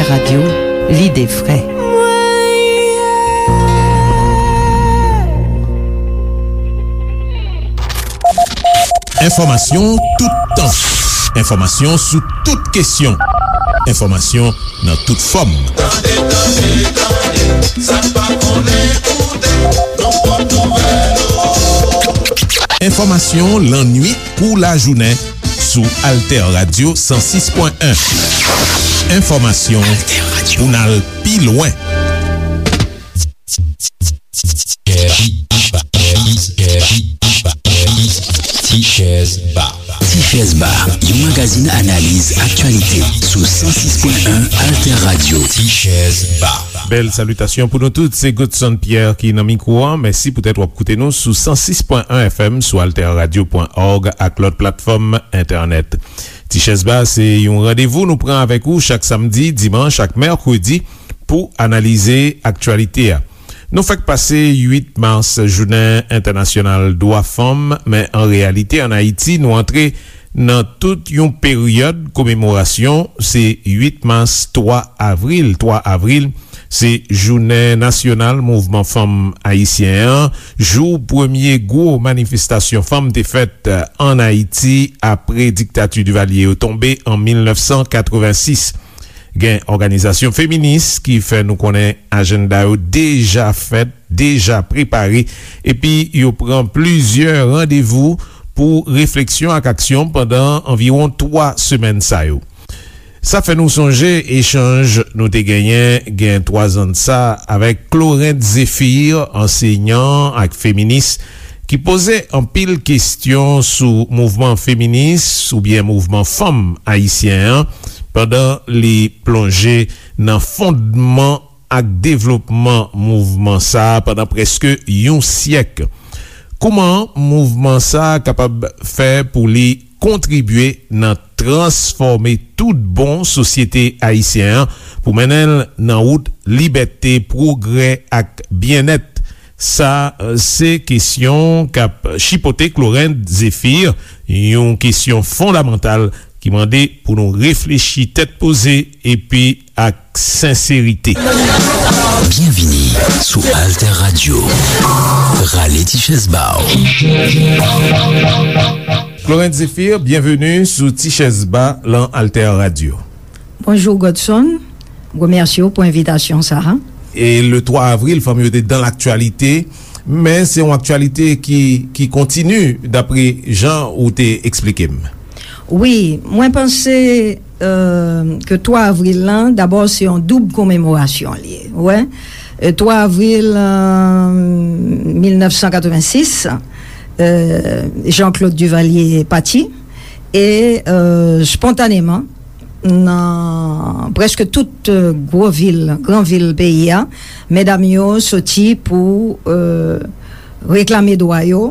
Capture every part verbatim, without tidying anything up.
Radyo, lide fre. Enfòmasyon toutan. Enfòmasyon sou tout kesyon. Enfòmasyon nan tout fòm. Tande, tande, tande, sa n pa konnen, koute nan pòt nouvèl. Enfòmasyon lannuit kou lajounen sou Alter Radio san sis pwen en. Enfòmasyon pou n al pi lwen. Tichèz Ba. Tichèz Ba, yon magazin analiz aktyalite sou san sis pwen en Alter Radio. Tichèz Ba. Bèl salitasyon pou nou tout, se Godson Pierre ki nan mikwo a. Mèsi poutèt w ap koute nou sou san sis pwen en F M, sou alter radio pwen org ak lòt platfòm entènèt. Tichèz Ba se yon randevou nou pran avèk ou chak samdi, dimanch ak mèkredi pou analize aktyalite a. Nou fèk pase uit mas, Jounen Entènasyonal Dwa Fanm, men an reyalite, ann Ayiti, nou antre nan tout yon peryòd komemorasyon. Se uit mas, twa avril. Twa avril, se Jounen Nasyonal Mouvman Fanm Ayisyen an, jou premye gwo manifestasyon fanm te fèt, eh, ann Ayiti apre diktati Divalye yo tonbe an mil nèf san katrevensis. Gen òganizasyon feminis ki fè nou konnen ajannda yo deja fèt, deja prepare, epi yo pran plizyè randevou pou refleksyon ak aksyon pandan anviwon twa semèn sa yo. Sa fè nou sonje echanj nou te genyen gen twa zan de sa avèk Clorinde Zéphir, ansenyan ak feminis, ki poze anpil kesyon sou mouvman feminis oubyen mouvman fanm ayisyen an, pandan li plonje nan fondman ak devlopman mouvman sa a pandan prèske yon syèk. Kòman mouvman sa a kapab fè pou li kontribye nan transfòme tout bon sosyete ayisyen an pou mennen l nan wout libète, pwogrè ak byennèt? Sa, eh, se kesyon k ap chipote Clorinde Zéphir, yon kesyon fondamantal ki mande pou nou reflechi tèt poze epi ak senserite. Byenvini sou Alter Radio. Rale ti chèz ba w. Clorinde Zéphir, byenveni sou Ti Chèz Ba lan Alter Radio. Bonjou, Godson. Remèsye w pou envitasyon sa a. E le twa avril, fanm yo te dan laktyalite, men se yon aktyalite ki, ki kontini, dapre jan ou te eksplike m. Wi, mwen panse, euh, ke twa avril lan, dabò, se yon doub komemorasyon li ye, ou wè. Euh, twa avril, euh, mil nèf san katrevensis, euh, Jean-Claude Duvalier pati, e, euh, spontaneman, nan prèske tout, euh, gwo vil, gran vil peyi a, medam yo soti pou, euh, reklame dwa yo,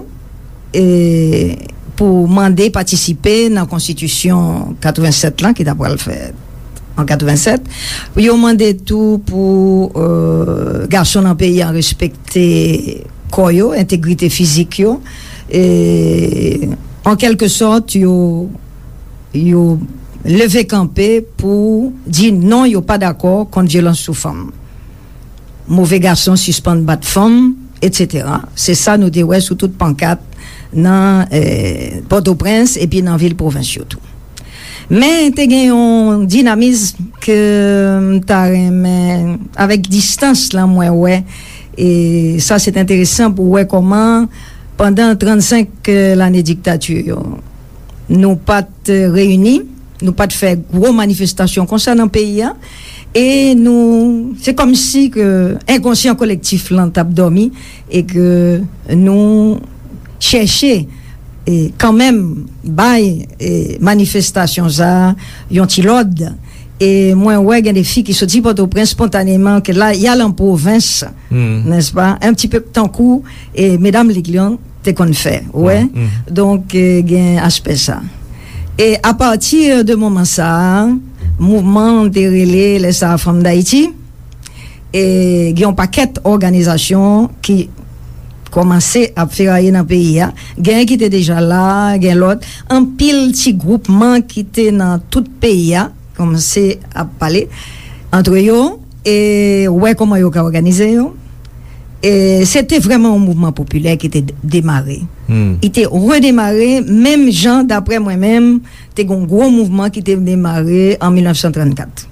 e pou mande patisipe nan konstitisyon katrevensèt lan, ki ta pral fèt an katrevensèt. Yo mande tou pou, euh, gason nan peyi an respekte kò yo, entegrite fizik yo. E, an kèlke sòt, yo, yo leve kanpe pou di non, yo pa dakò kont vyolans sou fanm. Move gason sispann bat fanm, etsetera. Se sa nou te wè sou tout pankat nan, eh, Pòtoprens epi nan vil pwovens yo tou. Men te gen yon dinamis ke m ta renmen, avèk distans lan, mwen wè, e sa se enteresan pou wè kòman pandan trannsenk lane diktati yo, nou pa t reyini, nou pa t fè gwo manifestasyon konsa nan peyi a, e nou, se kòmsi ke enkonsyan kolektif lan t ap dòmi, e ke nou chèche, e, kanmenm bay, e, manifestasyon sa a yon ti lòd. E mwen wè gen de fi ki soti Pòtoprens spontaneman, ke la, y al an pwovens, nèspa? Un petit peu tankou, e, medam Lig lan te konn fè, ou wè. Donk, e, gen aspè sa. E apati de moman sa a, mouvman an te rele lè sa a Fanm Dayiti. E gen yon pakèt òganizasyon ki kòmanse ap feraye nan peyi a. Gen ki te deja la, gen lòt. Anpil ti gwoupman ki te nan tout peyi a kòmanse ap pale. antre yo e wè kòman yo ka òganize yo. E se te vrèman yon mouvman popilè ki te de- demare. Hmm. Li te redemare menm jan, daprè mwen menm, te gen yon gwo mouvman ki te demare an mil nèf san trannkat.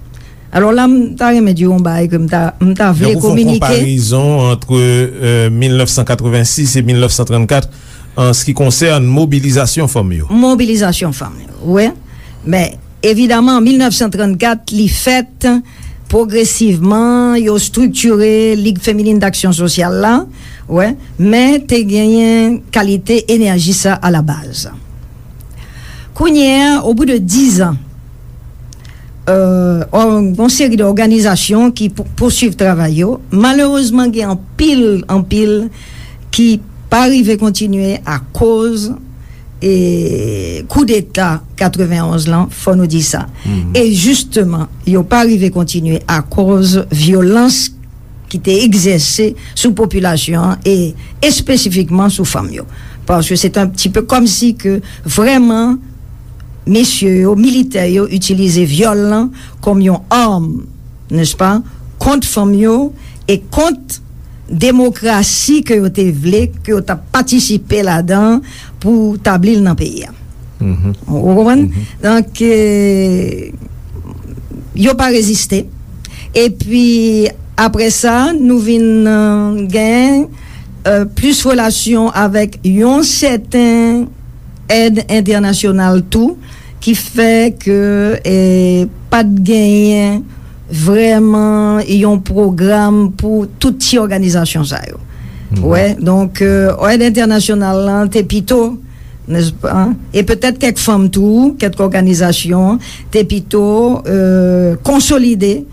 Alò la, m ta renmen di yon bagay ke m ta, m ta vle kominike. Donk, ou fè yon konparezon ant, euh, mil nèf san katrevensis e mil nèf san trannkat an se ki konsène mobilizasyon fanm yo. Mobilizasyon fanm yo, wi. Men, evidaman, an mil nèf san trannkat, li fèt pwogresivman, yo estriktire Lig Feminin Daksyon Sosyal la, wi, men te genyen kalite enèji sa alabaz. Kounye a, au bout de dix ans, euh, ò- yon seri de òganizasyon ki pou- pousuiv travay yo. Malerezman, gen anpil, anpil ki pa rive kontinye akoz e koudeta katrevenonz lan, fò nou di sa. Mhm. E jisteman, yo pa rive kontinye akoz vyolans ki te egzèse sou popilasyon an e espesifikman sou fanm yo. Paske se te yon ti pe kòmsi ke vrèman mesye yo, militè yo itilize vyòl lan kòm yon arm, nèspa, kont fanm yo e kont demokrasi ke yo te vle, ke yo t ap patisipe ladan pou tabli l nan peyi a. Mhm. Ou konprann? Mhm. Donk, eh, yo pa reziste. Epi, apre sa, nou vin, eh, gen, eh, plis relasyon avèk yon sèten èd entènasyonal tou, ki fè ke, eh, pa t genyen vrèman yon pwogram pou tout ti òganizasyon sa yo. Mhm. Wè, donk, eh, èd entènasyonal lan te pito, nèspa, e petèt kèk fanm tou, kèk òganizasyon, te pito, eh, konsolide,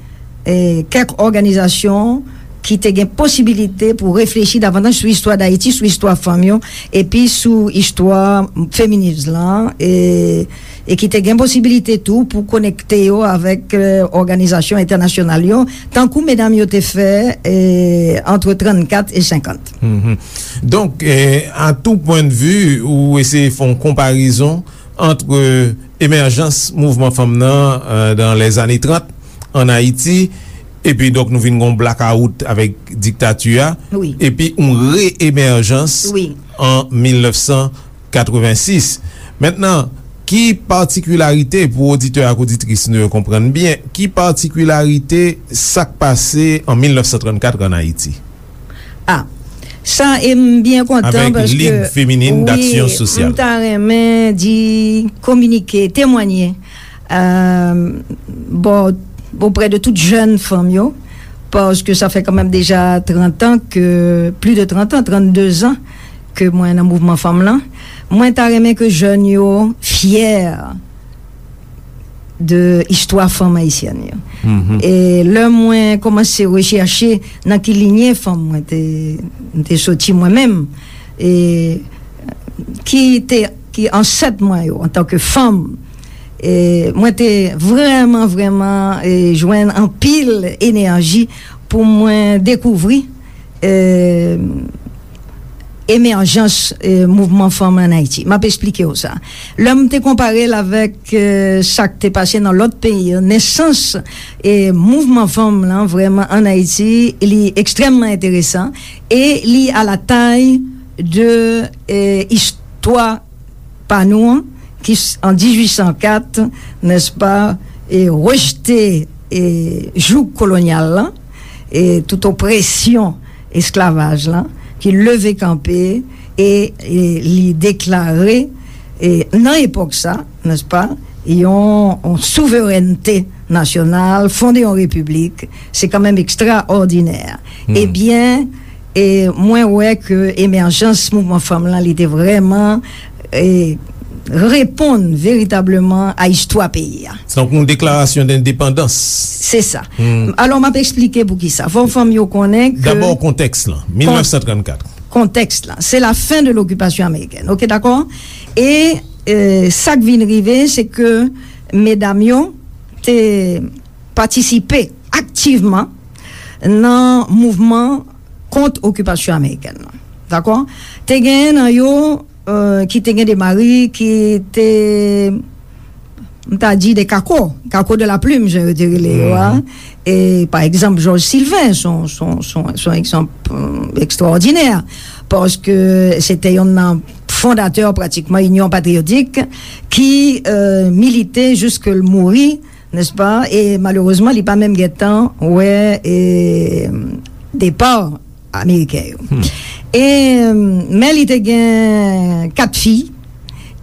eh, kèk òganizasyon ki te gen posibilite pou reflechi davantaj sou istwa Dayiti, sou istwa fanm yo, epi sou istwa feminis lan, e, e ki te gen posibilite tou pou konekte yo avèk, eh, òganizasyon entènasyonal yo, tankou medam yo te fè, eh, ant trannkat e senkant. Mhm. Donk, eh, à tout point de vue, ou eseye fè yon konparezon ant emèjans mouvman fanm nan, eh, dans les années trente an Ayiti, epi donk nou vin gon blakawout avèk diktati a, wi, epi yon re-emèjans, wi, an mil nèf san katrevensis. Mentnan, ki patikilarite, pou oditè ak oditris nou yo konprann byen, ki patikilarite sa k pase an mil nèf san trannkat an Ayiti? Ah, sa, e m byen kontan avèk paske, Lig Feminin, wi, Daksyon Sosyal. M ta renmen di, kominike, temwanye, euh, bò, oprè de tout jèn fanm yo, paske sa fè kanmenm deja trant an ke, plis de trant an, trannde zan ke mwen nan mouvman fanm lan. Mwen ta renmen ke jèn yo fyè de istwa fanm ayisyèn yo. Mhm. E lè mwen kòmanse rechèche nan ki linye fanm mwen te, te soti mwen menm, e ki te, ki ansèt mwen yo antanke fanm, e mwen te vrèman, vrèman, e, jwenn anpil enèji pou mwen dekouvri, e, emèjans, e, mouvman fanm an Ayiti. M ap esplike w sa. Lè m te konpare l avèk, e, sa k te pase nan lòt peyi yo, nesans, e, mouvman fanm lan vrèman an Ayiti, li ekstrèmman enteresan e li a la taille de, e, istwa pa nou an, ki s- an dizuit san kat, nèspa, e rejte, e jouk kolonyal lan, e tout opresyon esklavaj lan, ki leve kanpe e, e li deklare, e nan epòk sa, nèspa, yon, yon souverènte nasyonal, fonde yon repiblik, se kanmenm ekstraòdinè. Hmm. Ebyen, e mwen wè ke emèjans mouvman fanm lan, li te vrèman, e, reponn veritableman a istwa peyi a. Tankou yon deklarasyon dendepandans. Se sa. Hmm. Alò, m ap eksplike poukisa. Fò fanm yo konnen ke... Dabò, kontèks lan, mil nèf san trannkat. Kontèks lan, se la fen de lokipasyon amerikèn. Oke, dakò? E, e, sa k vin rive, se ke medam yo te patisipe aktivman nan mouvman kont okipasyon amerikèn lan. Dakò? Te genyen nan yo, e, ki te gen de mari ki te m ta di de kako, kako de la plume, jan yo te rele yo a. E, pa egzanp, Jòj Silven, son, son, son, son egzanp, euh, ekstraòdinè, paske se te yonn nan fondatè, pratikman, Inyon Patriyotik, ki, euh, milite jiske l mouri, nèspa? E malerezman, li pa menm gentan wè, e, depa ameriken yo. E, men li te gen kat fi,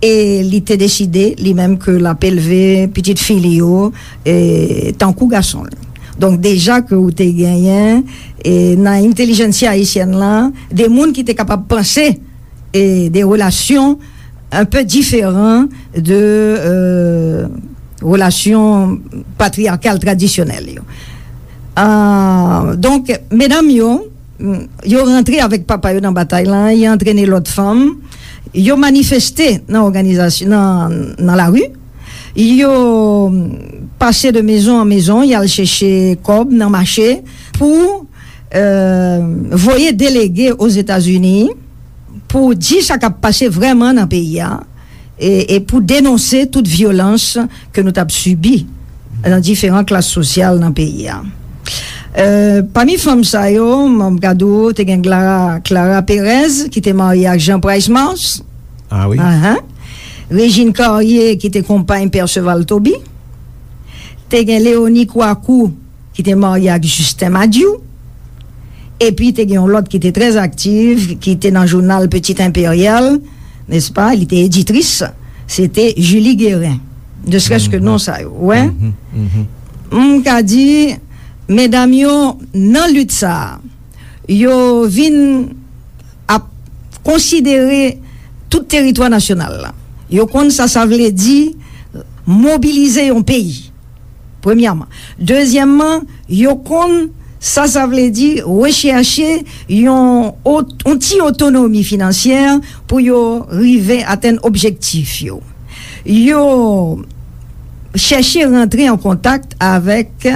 e li te deside, li menm, ke l ap elve pitit fi li yo, e, tankou gason l. Donk, deja ke ou te genyen, e, nan entèlijensya ayisyèn lan, de moun ki te kapab panse, e, de relasyon un peu différent de, euh, relasyon patriyakal tradisyonèl yo. Ah, donk, medam yo, mm, yo rantre avèk papa yo nan batay lan, yo antrene lòt fanm, yo manifeste nan òganizasyon, nan, nan lari, yo, mm, pase de maison en maison, y al chèche kòb nan mache pou, euh, voye delege Ozetazini pou di sa k ap pase vrèman nan peyi a, e, e pou denonse tout vyolans ke nou t ap sibi nan diferan klas sosyal nan peyi a. Euh, pami fanm sa yo, m ka di w, te gen Clara, Clara Perez, ki te marye ak Jean Price Mars. Ah wi. Ahan. Régine Carrier, ki te konpay Perceval Toby. Te gen Léonie Kouakou, ki te marye ak Justin Madiou. Epi te gen yon lòt ki te trè aktif, ki te nan jounal Petit Impérial, nèspa? Li te editris. Se te Julie Guérin. Ne serait-ce que non sa yo, wè. M ka di, medam yo, nan lit sa a, yo vin ap konsidere tout teritwa nasyonal la. Yo konn sa sa vle di mobilize yon peyi, premyèman. Dezyèmman, yo konn sa sa vle di rechèche yon ot-, yon ti otonomi finansyè pou yo rive atenn objektif yo. Yo chèche rantre an kontak avèk,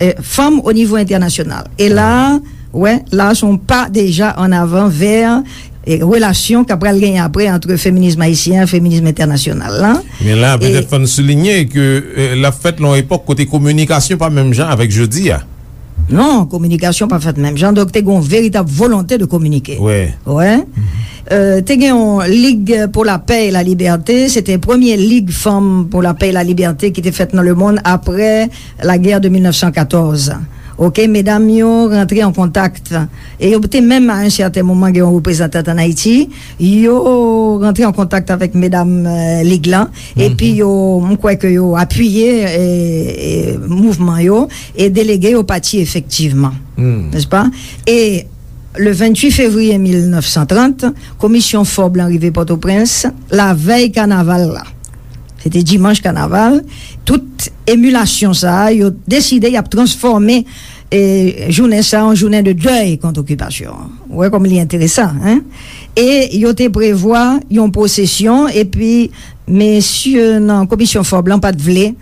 eh, fanm o nivo entènasyonal. E la, wè, la se yon pa deja an avan vè, eh, relasyon k ap pral genyen apre ant feminism ayisyen, feminism entènasyonal la. Men la, e petèt fò n soulinye ke, eh, l ap fèt nan yon epòk kote kominikasyon pa menm jan avèk jodi a. Non, kominikasyon pa fèt menm jan, donk te gen yon veritab volonte de kominike. Wè. Wè. Euh, te gen yon Lig pour la Paix et la Liberté, se te premye Lig Fanm pour la Paix et la Liberté ki te fèt nan lemonn apre lagè de mil nèf san katòz. Oke, medam yo rantre an kontak, e yo te menm, a yon sèten moman, gen yon reprezantant ann Ayiti, yo rantre an kontak avèk medam, euh, Lig lan, epi yo, m kwè ke yo apiye, e, e, mouvman yo, e delege yo pati efektivman, nèspa? E le venntuit fevriye mil nèf san trant, Komisyon Forbes lan rive Pòtoprens, lavèy kanaval la. Se te dimanch kanaval. Tout emilasyon sa a, yo deside y ap transfòme, e, jounen sa a an jounen de dèy kont okipasyon an. Ou wè kòman li enteresan, en? E yo te prevwa yon pwosesyon, epi mesye nan Komisyon Forbes lan pa t vle.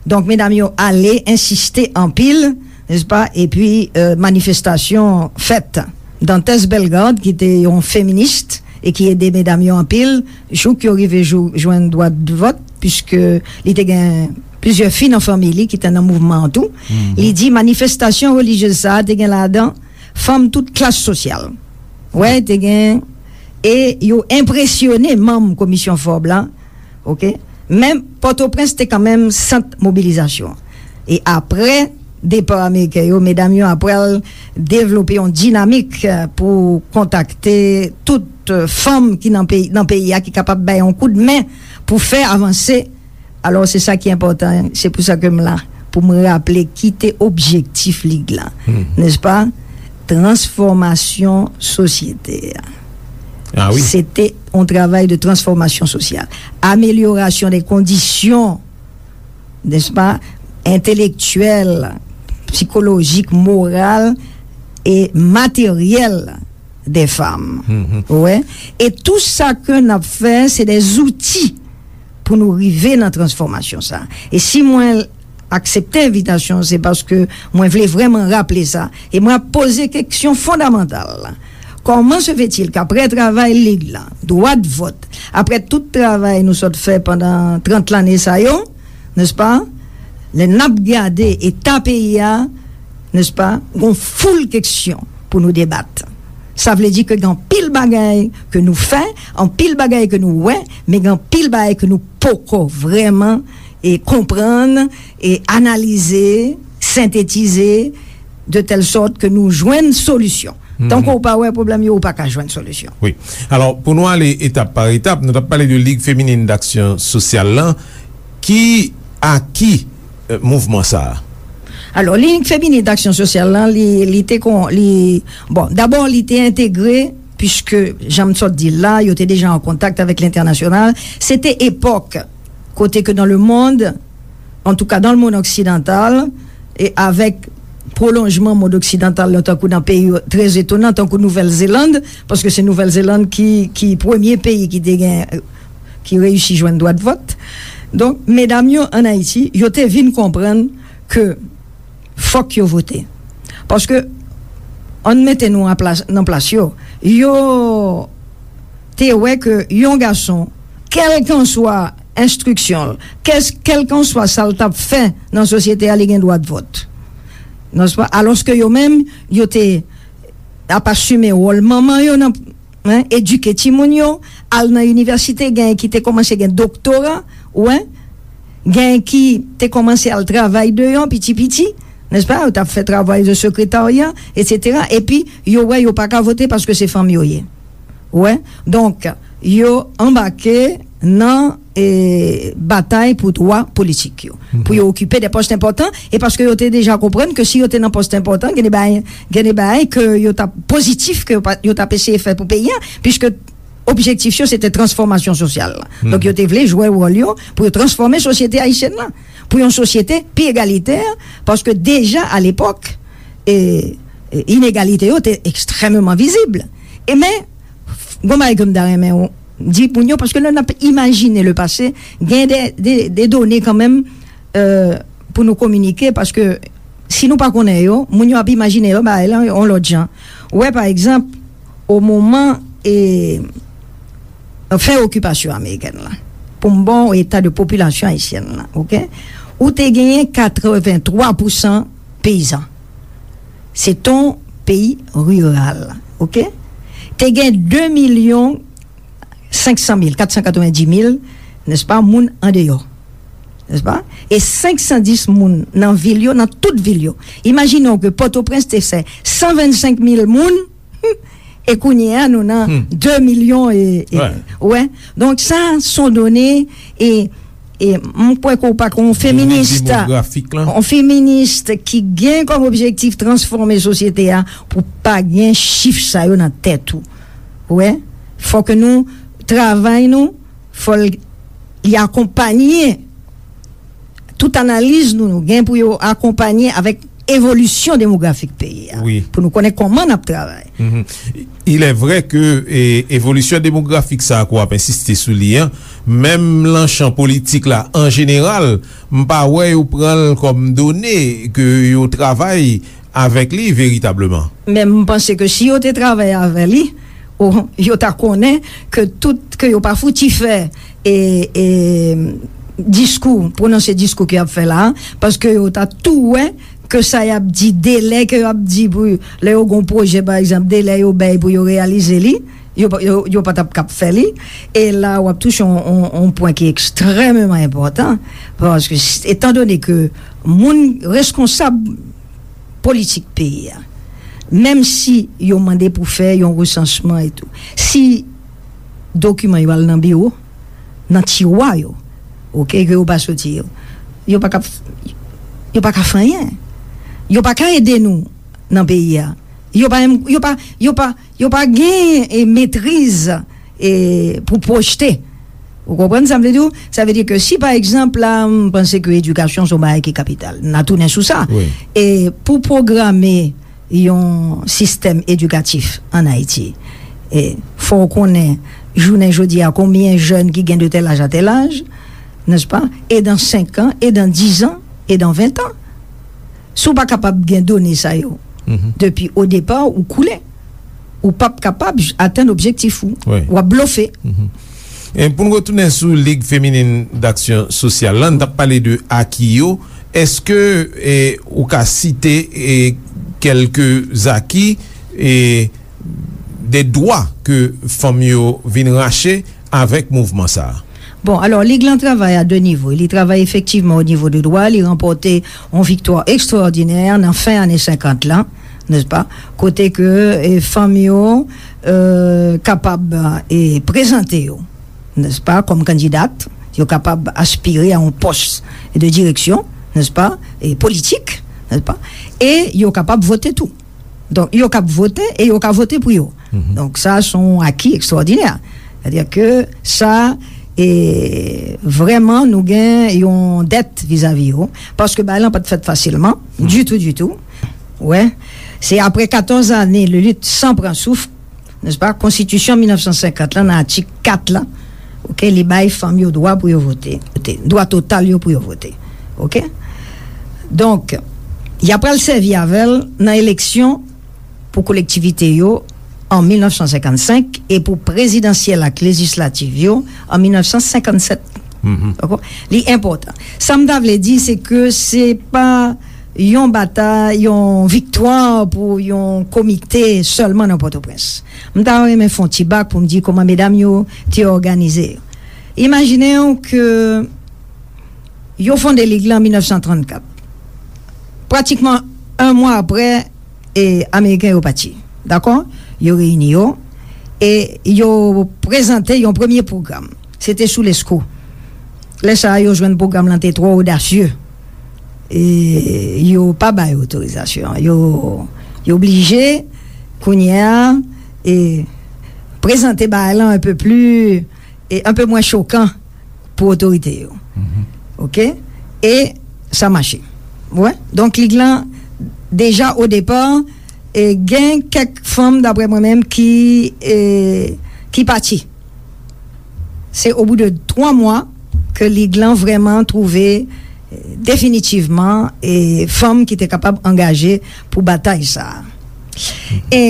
Donk, medam yo ale, ensiste anpil, nèspa? Epi, euh, manifestasyon fèt. Dantès Bellegarde, ki te yon feminis e ki ede medam yo anpil, jouk yo rive jou, jwenn dwa vòt, piske li te gen plizyè fi nan fanmi li ki te nan mouvman an tou. Li di manifestasyon relijyez sa a te gen ladan fanm tout klas sosyal. Wè, te gen, e yo enpresyone manm Komisyon Forbes la, oke? Men Pòtoprens te kanmenm sant mobilizasyon. E apre depa ameriken yo, medam yo apral devlope yon dinamik, eh, pou kontakte tout, eh, fanm ki nan peyi, nan peyi a ki kapab bay yon koudmen pou fè avanse. Alò, se sa ki enpòtan, se pou sa ke m la, pou m raple ki te objektif Lig la, nèspa? Transfòmasyon sosyete a. Ah wi. Se te yon travay de transfòmasyon sosyal. Amelyorasyon de kondisyon, nèspa, entelektyèl, sikolojik, moral e materyèl de fanm. Ou wè? E tou sa ke n ap fè, se de zouti pou nou rive nan transfòmasyon sa. E si mwen aksepte envitasyon, se paske mwen vle vrèman raple sa. E mwen ap poze keksyon fondamantal la. Comment se fait-il qu'après travay Lig la, dwa de vòt, apre tout travay nou sot fè pandan trant lane sa yo, nèspa, lè n ap gade eta peyi a, nèspa, gon foul keksyon pou nou debat. Sa vle di ke gen anpil bagay ke nou fè, anpil bagay ke nou wè, men gen anpil bagay ke nou poko vrèman e konprann e analize, sentetize, de tèl sòt ke nou jwenn solisyon. Tankou w pa wè pwoblèm yo, ou pa ka jwenn solisyon. Wi. Alò, pou nou ale etap pa etap, nou t ap pale de Lig Feminin Daksyon Sosyal lan. Ki aki mouvman sa a? Alò, Lig Feminin Daksyon Sosyal lan, li, li te kon, li, bon, dabò, li te entegre, piske, jan m sot di l la, yo te deja an kontak avèk lentènasyonal. Se te epòk kote ke dans le monde, en tout cas dans le monde occidental, e avèk pwolonjman mond oksidantal lan, tankou nan peyi yo, trè etonan, tankou Nouvèl Zeland, paske se Nouvèl Zeland ki, ki premye peyi ki te gen, ki reyisi jwenn dwa de vòt. Donk, medam yo ann Ayiti, yo te vin konprann ke fòk yo vote. Paske, ann mete nou an plas, nan plas yo, yo te wè ke yon gason, kèlkanswa enstriksyon l, kès, kèlkanswa sa l t ap fè nan sosyete a, li gen dwa de vòt. Nèspa? Alòske yo menm, yo te ap asime wòl manman yo nan, en, edike timoun yo, al nan inivèsite, genyen ki te kòmanse gen doktora, ou wè, genyen ki te kòmanse al travay deyò piti piti, nèspa? Yo t ap fè travay de sekretarya, etsetera. Epi, yo wè yo pa ka vote paske se fanm yo ye. Ou wè? Donk, yo anbake nan, e, batay pou dwa politik yo. Pou yo okipe de pòs enpòtan, e paske yo te deja konprann ke si yo te nan pòs enpòtan, gen de bagay, gen de bagay ke yo t ap pozitif, ke yo pa, yo t ap eseye fè pou peyi a, piske objektif yo se te transfòmasyon sosyal la. Donk, yo te vle jwe wòl yo pou yo transfòme sosyete ayisyèn lan, pou yon sosyete pi egalitè, paske deja alepòk, e, e, inegalite yo te ekstrèmeman vizib. E men, gon bagay ke m ta renmen di moun yo, paske lè n ap imajine le pase, gen de, de, de done kanmenm, e, pou nou kominike, paske si nou pa konnen yo, moun yo ap imajine yo bagay lan yon lòt jan. Ou wè, pa egzanp, o moman, e, fen okipasyon amerikèn lan, pou m ba w eta de popilasyon ayisyèn lan, oke? Ou te genyen katrevenntwa pousan peyizan. Se t on peyi riral, oke? Te gen de milyon senk san mil, kat san katrevendis mil, nèspa, moun andeyò, nèspa? E senk san dis moun nan vil yo, nan tout vil yo. Imajine w ke Pòtoprens te fè san vennsenk mil moun, e kounye a, nou nan de milyon e, e, wè. Donk, sa, s on done, e, e m kwè ke w pa ka yon feminis, yon feminis ki gen kòm objektif transfòme sosyete a pou pa gen chif sa yo nan tèt ou. Ou wè? Fò ke nou, travay nou, fò l, li akonpanye tout analiz nou, nou gen pou yo akonpanye avèk evolisyon demografik peyi a, pou nou konnen kòman n ap travay. Il est vrai que, e, evolisyon demografik sa a ke w ap ensiste sou li an, menm lan chan politik la, an jeneral, m pa wè yo pran l kòm done ke yo travay avèk li veritableman. Men m panse ke si yo te travay avè li, o, yo ta konnen ke tout, ke yo pa fouti fè, e, e, diskou, pwononse diskou ke y ap fè la, paske yo ta tou wè ke sa y ap di, delè ke y ap di pou, lè yo gen yon pwojè, pa egzanp, delè yo bay pou yo reyalize li, yo, yo, yo pa t ap kab fè li. E la, w ap touche yon, yon, yon pwen ki ekstrèmeman enpòtan, paske, etandone ke moun reskonsab politik peyi a, menm si yo mande pou fè yon resansman e tou, si dokiman yo al nan biwo, nan tiwa yo, oke, ke yo pa soti yo, yo pa ka, yo pa ka fè anyen. Yo pa ka ede nou nan peyi a. Yo pa, yo pa, yo pa, yo pa gen, e, metriz, e, pou pwojte. Ou konprann sa m vle di w? Sa vle di ke si, pa egzanp, la, m panse ke edikasyon se yon bagay ki kapital. N a tounen sou sa. E pou pwograme yon sistèm edikatif ann Ayiti, e fò w konnen, jounen jodi a, konbyen jèn ki gen de tèl aj a tèl aj, nèspa? E dan senk an, e dan diz an, e dan ven an. Si w pa kapab gen done sa yo depi o depa, ou koule. Ou p ap kapab atenn objektif ou. W ap blofe. E pou n retounen sou Lig Feminin Daksyon Sosyal la, n t ap pale de aki yo. Èske e, ou ka site e, kèlke aki e, de dwa ke fanm yo vin rache avèk mouvman sa a? Bon, alò, Lig lan travay a de nivo. Li travay efektivman o nivo de dwa, li ranpòte yon viktwa ekstraòdinè nan fen ane senkant lan, nèspa? Kote ke e, fanm yo e, kapab e, prezante yo, nèspa, kòm kandidat, yo kapab aspire a yon pòs de direksyon, nèspa, e politik, nèspa, e yo kapab vote tou. Donk, yo kab vote e yo ka vote pou yo. Donk, sa se yon aki ekstraòdinè. Sètadi ke sa, e, vrèman, nou gen yon dèt vizavi yo, paske bagay lan pa t fèt fasilman, ditou, ditou. Wè, se apre katòz ane de lit san pran souf, nèspa, konstitisyon mil nèf san senkant lan, nan atik kat la, oke, li bay fanm yo dwa pou yo vote, dwa total yo pou yo vote. Oke? Donk, y ap pral sèvi avè l nan eleksyon pou kolektivite yo an mil nèf san senkannsenk e pou prezidansyèl ak lejislativ yo an mil nèf san senkannsèt. Dakò? Li enpòtan. Sa m ta vle di, se ke se pa yon batay, yon viktwa pou yon komite sèlman nan Pòtoprens. M ta renmen fè yon ti bak pou m di kòman medam yo te òganize yo. Imajine w ke yo fonde lig la an mil nèf san trannkat. Pratikman, yon mwa apre, e, Ameriken yo pati. Dakò? Yo reyini yo e yo prezante yon premye pwogram. Se te sou Lesko. Lè sa a, yo jwenn pwogram lan te twò odasye. E yo pa bay otorizasyon. Yo, yo blije, kounye a, e prezante bagay lan un peu plus, e un peu moins choquant pou otorite yo. Oke? E sa mache. Wè. Donk, lig lan, deja o depa, e gen kèk fanm, daprè mwen menm, ki, e, ki pati. Se au bout de twa mwa ke lig lan vrèman twouve, e, definitivman, e, fanm ki te kapab angaje pou batay sa a. E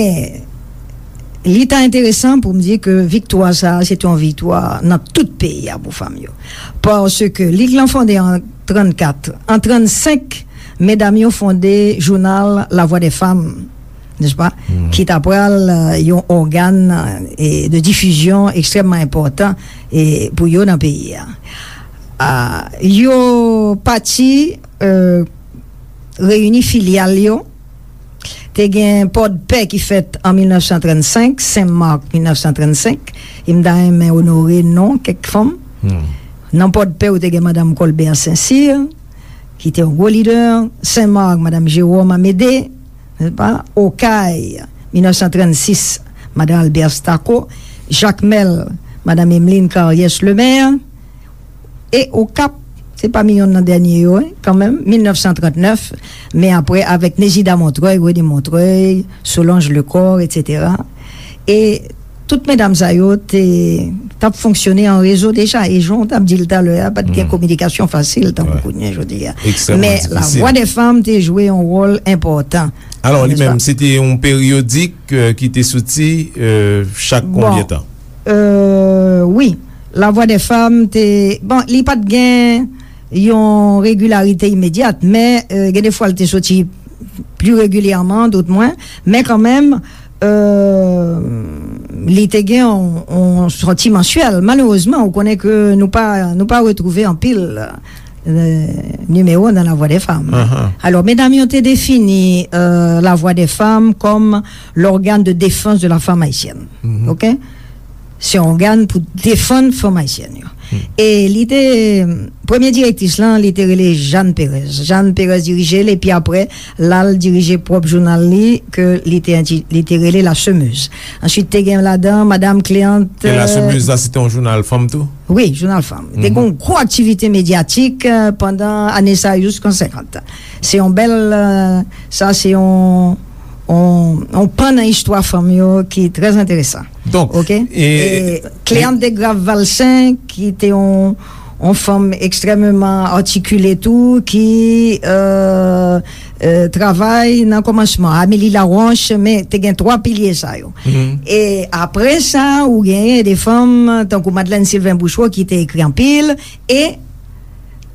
li ta enteresan pou m di ke viktwa sa a, se te yon viktwa nan tout peyi a pou fanm yo. Paske lig lan fonde an trannkat, an trannsenk, medam yo fonde jounal La Voix des Femmes, nèspa? Ki ta pral, e, yon ògàn, e, de difizyon ekstrèmman enpòtan, e, pou yo nan peyi a. A, yo pati, e, reyini filyal yo. Te gen Pòdpè ki fèt an mil nèf san trannsenk, Sen Mak mil nèf san trannsenk, e m ta renmen onore non kèk fanm. Nan Pòdpè, ou te gen Madanm Colbert Saint-Cyr, ki te yon gwo lidè, Sen Mak, Madanm Jérôme Amédée, nèspa? Okay, mil nèf san trannsis, Madanm Albert Staco, Jakmèl, Madanm Emeline Carriès Lemaire, e Okap, se pami yonn nan dènye yo, wi, kanmenm, mil nèf san trannèf, men apre, avèk Nézida Montreuil, René Montreuil, Solange Lecor, etsetera. E tout medam sa yo te, t ap fonksyone an rezo deja, e jan w t ap di l talè a, pa t gen kominikasyon fasil tankou kounye a jodi a. Men La Voix des Femmes te jwe yon wòl enpòtan. Alò, li menm, se te yon peryodik, e, ki te soti, e, chak konbyen tan? E, wi. La Voix des Femmes te, bon, li pa t gen yon regilarite imedyat, men, e, gen de fwa l te soti pli regilyèman, dòt mwen, men kanmenm, e, li te gen yon, yon sòti mansyèl. Malerezman, ou konnen ke nou pa, nou pa retwouve anpil, e, nimewo nan La Voix des Femmes. Alò, medam yo te defini, e, La Voix des Femmes kòm l'organe de défense de la femme haïtienne. Oke? Se yon ògàn pou defann fanm ayisyèn yo. E li te, premye direktris lan, li te rele Jeanne Perez. Jeanne Perez dirije l, epi apre, l al dirije pwòp jounal li, ke li te, li te rele La Semeuse. Answit, te gen ladan Madanm Cléante. E La Semeuse la, se te yon jounal fanm tou? Wi, jounal fanm. Te gen yon gwo aktivite medyatik, e, pandan ane sa yo jiskan senkant. Se yon bèl, e, sa se yon, yon, yon pan nan istwa fanm yo ki trè enteresan. Donk, oke? E, e Cléante Desgraves Valcin, ki te yon, yon fanm ekstrèmeman atikile tou, ki, euh, euh, travay nan kòmansman, Amélie Laroche, men te gen twa pilye sa yo. E apre sa, ou genyen de fanm tankou Madeleine Sylvain Bouchereau ki te ekri anpil, e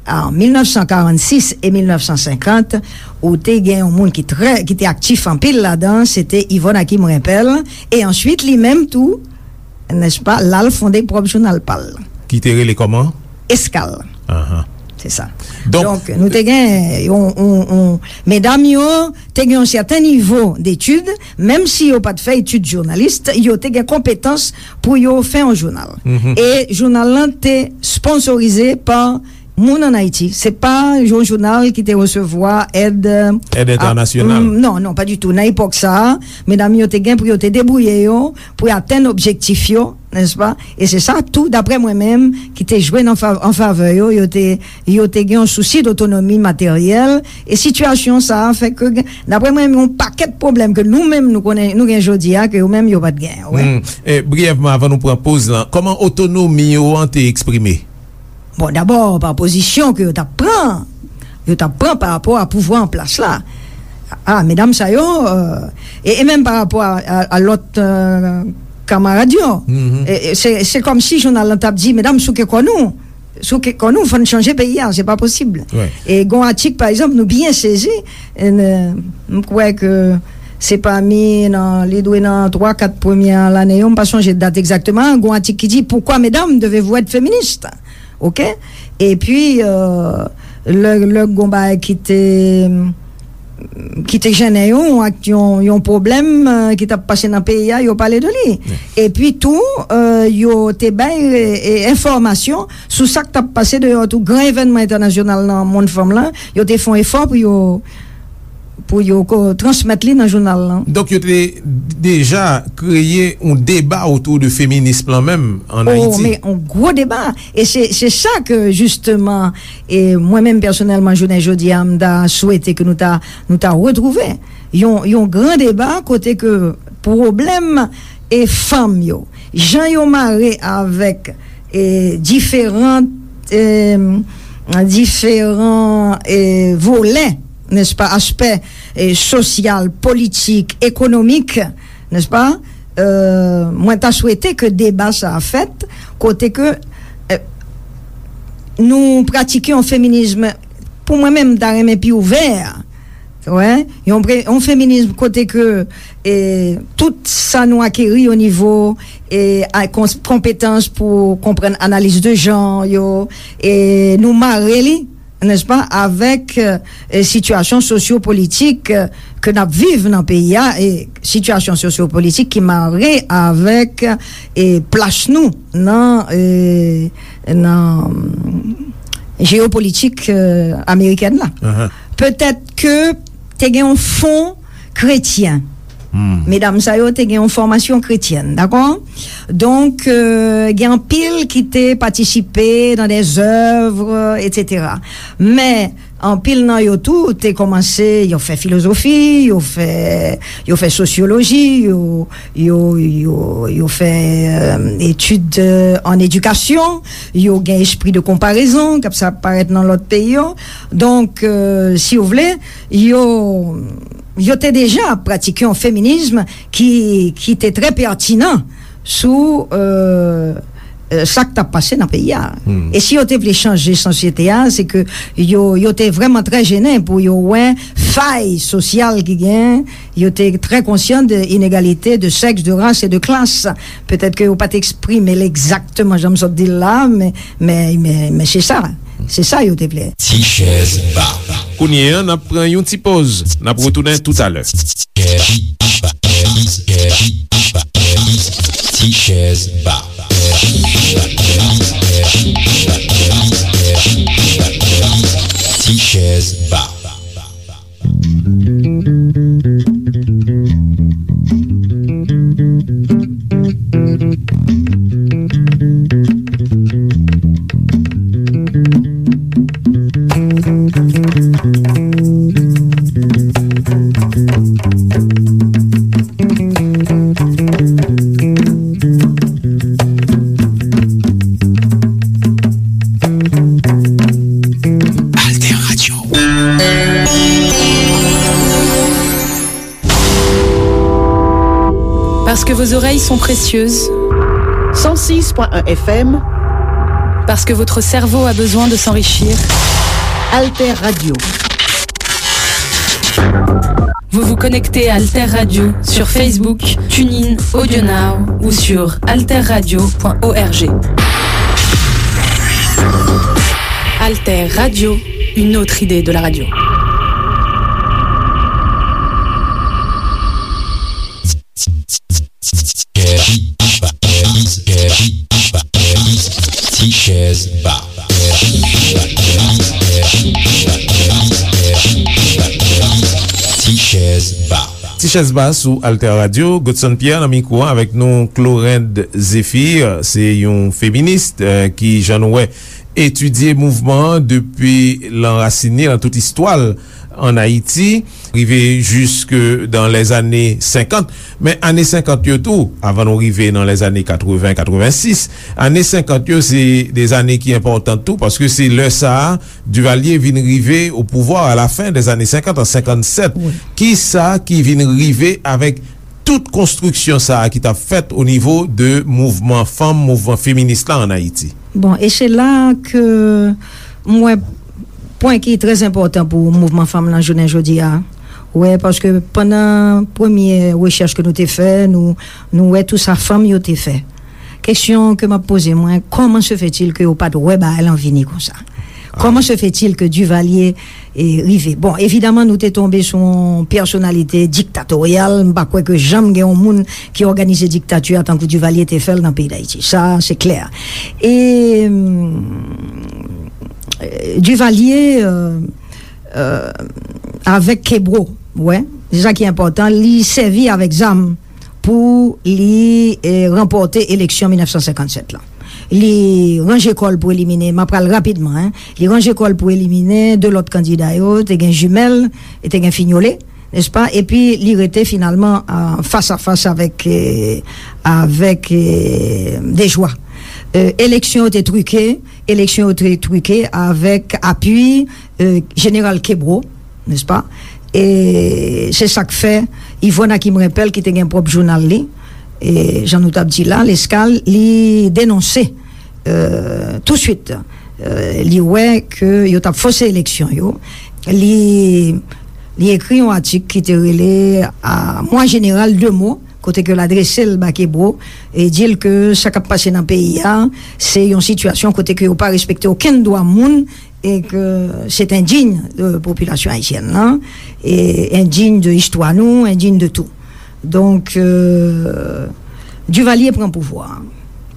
an mil nèf san karannsis e mil nèf san senkant, ou te gen yon moun ki trè, ki te aktif anpil ladan, se te Yvonne Hakim Rimpel, e answit li menm tou, nèspa, l al fonde pwòp jounal pa l. Ki te rele kòman? Eskal. Ahan. Se sa. Donk, Donk, nou te gen yon, yon, yon, medam yo te gen yon sèten nivo detid, menm si yo pa t fè etid jounalis, yo te gen konpetans pou yo fè yon jounal. Mhm. E jounal lan te sponsorize pa moun ann Ayiti. Se pa yon jounal ki te resevwa èd, Èd a, entènasyonal. Mm, non, non, pa ditou. Nan epòk sa a, medam yo te gen pou yo te debwouye yo, pou yo atenn objektif yo, nèspa? E se sa tou, daprè mwen menm, ki te jwe nan fa-, an favè yo, yo te, yo te gen yon sousi dotonomi materyèl, e sitiyasyon sa a fè ke, gen, daprè mwen, yon pakèt pwoblèm ke nou menm nou konnen, nou gen jodi a, ke yo menm yo pa t gen, wè. Hmm. E, briyèvman, avan nou pran poz lan, kòman otonomi yo an te eksprime? Bon, dabò, pa pozisyon ke yo t ap pran, yo t ap pran pa rapò a pouvwa an plas la. A, medam sa yo, euh, e, e menm pa rapò a, a, a lòt, euh, kamarad yo. Mhm. E, e, se, se kòmsi jounal lan t ap di, medam, souke kò nou. Souke kò nou, fò n chanje peyi a, se pa posib. Wi. E gon atik, pa egzanp, nou byen sezi, e n-, m kwè ke se pami nan, li dwe nan twa, kat premyè lane yo, m pa sonje dat egzakteman, gon atik ki di, pourquoi, mesdames, devez-vous être féministes? Oke? Epi, euh, lè, lè gon bagay ki te, ki te jennen yo, ak yon, yon pwoblèm, euh, ki t ap pase nan peyi a, yo pale de li. Wi. Epi tou, euh, yo te bay, e, e, enfòmasyon sou sa k t ap pase deyò tou. Gran evènman entènasyonal nan mond fanm lan, yo te fè yon efò pou yo, pou yo ko-, transmèt li nan jounal lan. Donk, yo te deja kreye yon deba otou de feminism lan menm ann Ayiti. Oh, men yon gwo deba. E se, se sa ke, jisteman, e mwen menm pèsonèlman, jounen jodi a, m ta swete ke nou ta, nou ta retwouve yon, yon gran deba kote ke pwoblèm e fanm yo, jan yo mare avèk, e, diferan, e, diferan, e, volè, nèspa, aspè, e, sosyal, politik, ekonomik, nèspa? E, mwen ta swete ke deba sa a fèt, kote ke, e, nou pratike yon feminism, pou mwen menm, m ta renmen pi ouvè. Wè, yon pre-, yon feminism kote ke, e, tout sa nou akeri o nivo, e, a, kons-, konpetans pou konprann analiz de jan yo, e nou mare li, nèspa, avèk, e, sitiyasyon sosyopolitik, e, ke n ap viv nan peyi a, e sitiyasyon sosyopolitik ki mare avèk, e, plas nou nan, e, nan jeyopolitik, e, amerikèn la. Ahan. Petèt ke te gen yon fon kretyen. Hmm. Medam sa yo te gen yon fòmasyon kretyèn, dakò? Donk, e, gen anpil ki te patisipe nan dè zèv, etsetera. Men, anpil nan yo tou te kòmanse, yo fè filozofi, yo fè, yo fè sosyoloji, yo, yo, yo, yo fè, e, etid, e, an edikasyon, yo gen espri de konparezon, k ap sa parèt nan lòt peyi yo. Donk, e, si w vle, yo, yo te deja ap pratike yon feminism ki, ki te trè pètinan sou, e, e, sa k t ap pase nan peyi a. Hmm. E si yo te vle chanje sosyete a, se ke yo, yo te vrèman trè jennen pou yo wè fay sosyal ki gen, yo te trè konsyan de inegalite de sèks, de ras e de klas. Petèt ke yo pa t eksprime l egzakteman jan m sot di l la, men, men, men, men se sa. Se sa yo te vle. Ti chèz ba. Kounye a, n ap pran yon ti pòz. N ap retounen toutalè. Ti chèz ba. Ti chèz ba. Oreilles sont précieuses. Cent six point un F M. Parce que votre cerveau a besoin de s'enrichir. Alter Radio. Vous vous connectez à Alter Radio sur Facebook, TuneIn, AudioNow ou sur alterradio point org. Alter Radio, une autre idée de la radio. Ti chèz ba. Ti chèz ba. Ti chèz ba sou Alter Radio. Godson Pierre nan mikwo an avèk nou, Clorinde Zéphir, se yon feminis, eh, ki, jan nou wè, etidye mouvman an depi l anrasine nan tout istwa l ann Ayiti, rive jiske dan lèzane senkant. Men ane senkant yo tou, avan nou rive nan lèzane katreven, katrevensis, ane senkant yo se de zane ki enpòtan tou, paske se lè sa a Duvalier vin rive o pouvwa a la fen dèzane senkant, an senkannsèt. Wi. Kisa ki vin rive avèk tout konstriksyon sa a ki t ap fèt o nivo de mouvman fanm, mouvman feminis la ann Ayiti? Bon, e se la ke m wè pwen ki trè enpòtan pou mouvman fanm nan jounen jodi a. Wi, paske pandan premye rechèch ke nou te fè, nou, nou wè tout sa fanm yo te fè. Kesyon ke m ap poze mwen, comment se fait-il ke yo pa t wè bagay lan vini konsa? Comment se fait-il ke Duvalier, eh, rive? Bon, evidaman, nou te tonbe sou yon pèsonalite diktatoryal. M pa kwè ke janm gen yon moun ki òganize diktati a tankou Duvalier te fè l nan peyi Dayiti. Sa, se klè. E, mm, eh, Duvalier, eh, eh, avèk Kebreau, wè, se sa ki enpòtan, li sèvi avèk zam pou li, eh, ranpòte eleksyon mil nèf san senkannsèt la. Li ranje kò l pou elimine, m ap pral rapidman, en, li ranje kò l pou elimine de lòt kandida yo, te gen Jumelle e te gen Fignolé, nèspa? Epi li rete finalman, ah, fas a fas avèk, eh, avèk, eh, Dejoie. Eh, eleksyon yo te trike, eleksyon yo te trike avèk apui, eh, Jeneral Kebreau, nèspa? E se sa k fè Yvonne Hakim Rempel, ki te gen pwòp jounal li, e jan nou t ap di la, Leskal, li denonse, eh, touswit, eh, li wè ke yo t ap fòse eleksyon yo. Li, li ekri yon atik ki te rele, ah, Moi Général, deux mots, kote ke l adrese l ba Kebreau e di l ke sa k ap pase nan peyi a, se yon sitiyasyon kote ke yo pa respekte okenn dwa moun e ke se t endiy de popilasyon ayisyèn lan, e endiy de istwa nou, endiy de tou. Donk, eh, Duvalier pran pouvwa.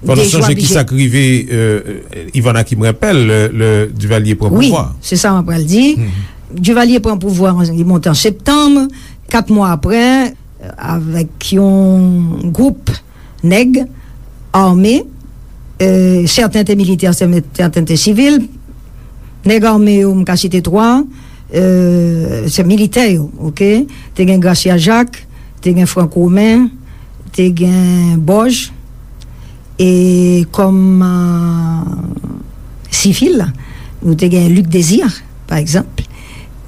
Fò nou sonje kisa k rive, eh, Yvonne Hakim Rempel lè, lè Duvalier pran pouvwa. Wi, se sa mwen pral di. Duvalier pran pouvwa, li monte an septanm, kat mwa apre, avèk yon gwoup nèg ame, eh, sèten te militè, sèten te sivil. Nèg ame yo, m ka site twa, eh, se militè yo, oke? Te gen Gracia Jacques, te gen Franck Romain, te gen Borges, e kòm, ah, sivil, nou te gen Luc Désir, pa egzanp,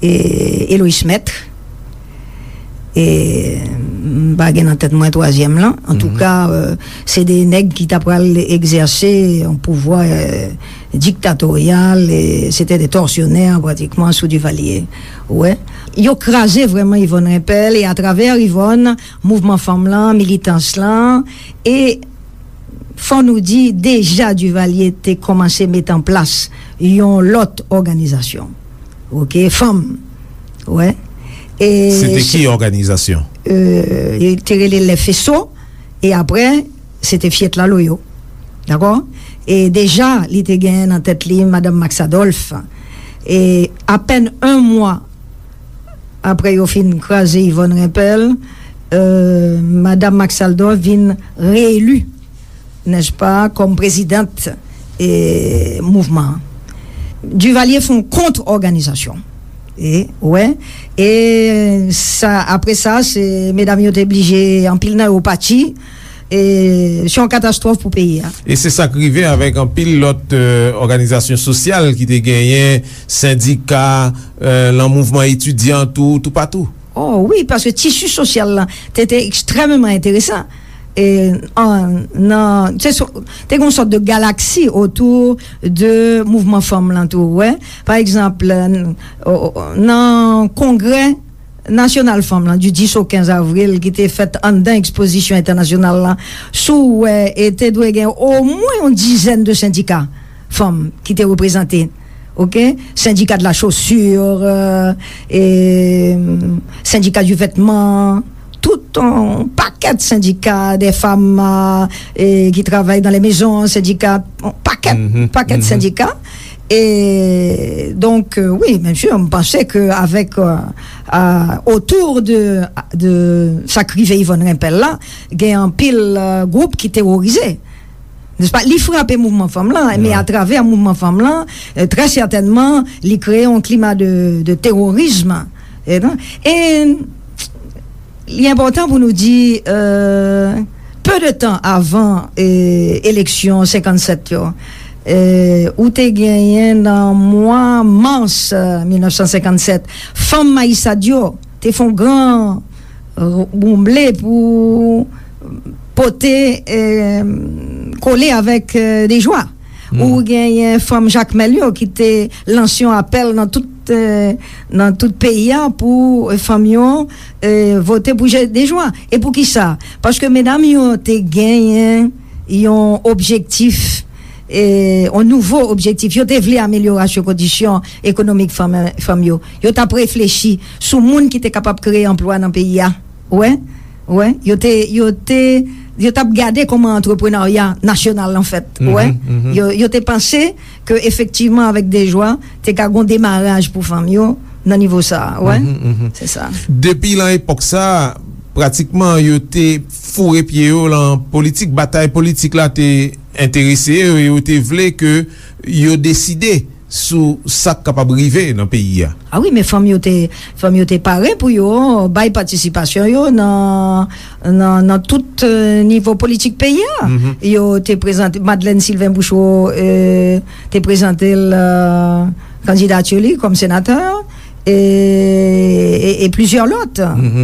e Eloïse Maître, e m pa gen nan tèt mwen twazyèm lan. Antouka, eh, se de nèg ki ta pral egzèse yon pouvwa, eh, diktatoryal, e se te de tòsyonè pratikman sou Duvalier. Ou wè? Yo kraze vrèman Yvonne Rempel, e atravè Yvonne, mouvman fanm lan, militans lan, e fò nou di, deja Duvalier te kòmanse met an plas yon lòt òganizasyon. Oke, fanm. Wè. E se te ki òganizasyon? Eh, yo te rele Lè Feso, e apre, se te Fyèt Laloyo. Dakò? E deja, li te genyen nan tèt li Madanm Max Adolphe. E apèn yon mwa apre yo fin kraze Yvonne Rempel, eh, Madanm Max Adolphe vin reeli, nèspa, kòm prezidant, eh, mouvman an. Duvalier fè yon kont-òganizasyon. E, wè. E sa, apre sa, se, medam yo te blije, anpil nan yo pati. E se yon katastwòf pou peyi a. E se sa k rive avèk anpil lòt, eh, òganizasyon sosyal ki te genyen, sendika, eh, lan mouvman etidyan tou, toupatou. Oh wi, paske tisi sosyal lan te, te ekstrèmeman enteresan. e, an, nan, se so-, te gen yon sòt de galaksi otou de mouvman fanm lan tou, wè. Pa egzanp, n-, o-, o-, nan kongrè nasyonal fanm lan, du dis au quinze avril, ki te fèt anndan ekspozisyon entènasyonal la, si w wè, e te dwe gen omwen yon dizèn de sendika fanm ki te reprezante. Oke? Sendika de la chaussure, euh, e, sendika du vêtement, tout yon pakèt sendika de fanm, euh, e, ki travay dans les maisons, sendika, yon pakèt, pakèt sendika. E donk, euh, wi, byen si, m panse ke avèk, euh, euh, otou de, de sa k rive Yvonne Rempel la, gen anpil, euh, gwoup ki teworize. Nèspa? Li frape mouvman fanm lan, men atravè mouvman fanm lan, euh, trè sètènman, li kreye yon klima de, de teworism. E, e li enpòtan pou nou di, euh, pe de tan avan, e, eleksyon senkannsèt yo, e, ou te genyen nan mwa mas, euh, mil nèf san senkannsèt, fanm Mayisad yo te fè yon gran r-, wonble pou pote, eh, kole avèk, eh, Dejwa. Ou genyen fanm Jakmèl yo ki te lanse yon apèl nan tout, eh, nan tout peyi a pou, eh, fanm yo, eh, vote pou Je-, Dejwa. E poukisa? Paske medam yo te genyen yon objektif, eh, yon nouvo objektif. Yo te vle amelyorasyon kondisyon ekonomik fanm, fanm yo. Yo t ap reflechi sou moun ki te kapab kreye anplwa nan peyi a. Ou wè? Ou wè? Yo te, yo te, yo t ap gade kòman antreprenarya nasyonal lan fèt. Ou wè? Yo, yo te panse ke efektivman avèk Dejwa, te ka gon demaraj pou fanm yo nan nivo sa a. Ou wè? Se sa. Depi lan epòk sa a, pratikman yo te foure pye yo lan politik, batay politik la te enterese yo, e yo te vle ke yo deside sou sa k kapab rive nan peyi a. A wi, men fanm yo te, fanm yo te pare pou yo bay patisipasyon yo nan, nan, nan tout, eh, nivo politik peyi a. Yo te prezante, Madeleine Sylvain Bouchereau, eh, te prezante l, eh, kandidati li kòm senatè, e, e, e plizyè lòt.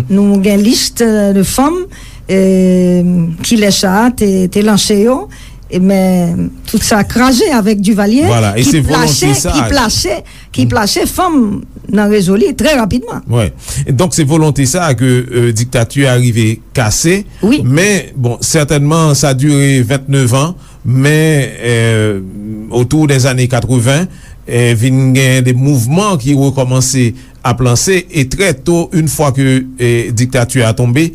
Nou gen lis, eh, de fanm, eh, ki lè sa a te, te lanse yo, e men tout sa kraze avèk Duvalier, ki plase, ki plase, ki plase fanm nan rezo li trè rapidman. Wi. Donk, se volonte sa a ke, eh, diktati a rive kase. Wi. Men, bon, sètènman, sa dire vennnev an, men, eh, otou dèzane katreven, eh, vin gen de mouvman ki rekòmanse ap lanse, e trè to, yon fwa ke, eh, diktati a tonbe,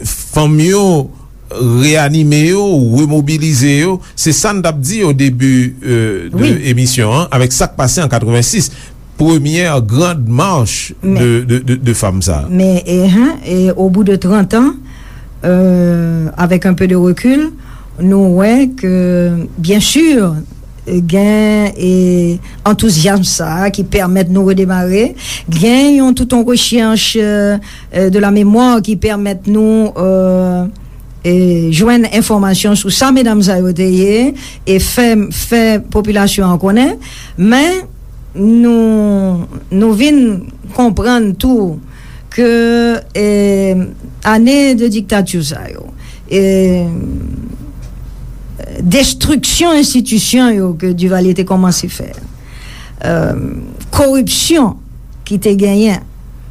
fanm yo reyanime yo, remobilize yo. Se sa n t ap di o debi, eh, de emisyon an, avèk sa k pase an katrevensis, premyè grand mach de, de, de, de fanm sa. Men, eh, hein, e o bout de trant an, eh, avèk un peu de recul, nou wè ke, byen si, gen, e, antouzyasm sa a ki pèmèt nou redemare, gen yon tout yon rechèch, eh, eh, de la mémoire ki pèmèt nou, eh, eh, jwenn enfòmasyon sou sa medam sa yo te ye, e fè, fè popilasyon an konnen, men nou, nou vin konprann tou ke, eh, ane de diktati sa yo, eh, destriksyon enstitisyon yo ke Duvalier te kòmanse fè, eh, koripsyon ki te genyen.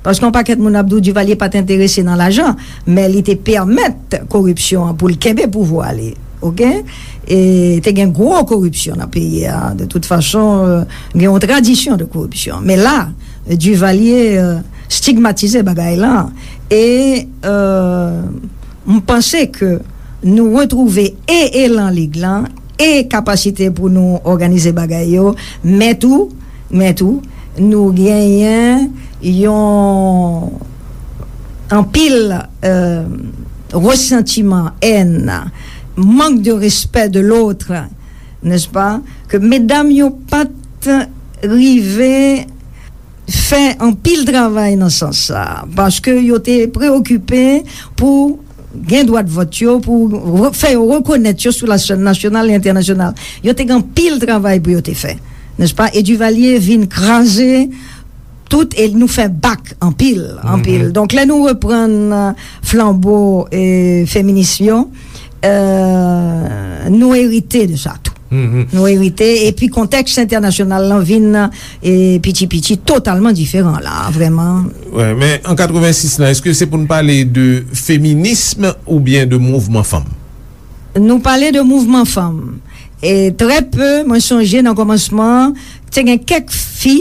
Paske yon pakèt moun ap di w Duvalier pa t enterese nan lajan, men li te pèmèt koripsyon an pou l kenbe pouvwa li. Oke? E te gen gwo koripsyon nan peyi a. De tout fason, euh, gen yon tradisyon de koripsyon. Men la, Duvalier, euh, stigmatize bagay la. E, euh, m panse ke nou retwouve e elan lig lan, e kapasite pou nou òganize bagay yo, men tou, men tou, nou genyen yon anpil, euh, resantiman, èn, mank de respè de lòt, n'est-ce pas, ke medam yo pa t rive fè anpil travay nan sans sa, paske yo te preokipe pou gen dwa de vòt yo, pou re-, fè yo rekonèt yo sou la sèn nasyonal e entènasyonal. Yo te gen anpil travay pou yo te fè, n'est-ce pas? E Duvalier vin kraze tout, e nou fè bak anpil, anpil. Donk, lè nou reprann, euh, flanbo, euh, feminis yo, euh, nou erite de sa tou. Nou erite, epi kontèks entènasyonal lan vin, e, piti piti, totalman diferan la, vrèman. Wi, men an katrevensis lan, èske se pou n pale de feminism oubyen de mouvman fanm? Nou pale de mouvman fanm. E trè pe, mwen sonje nan kòmansman, te gen kèk fi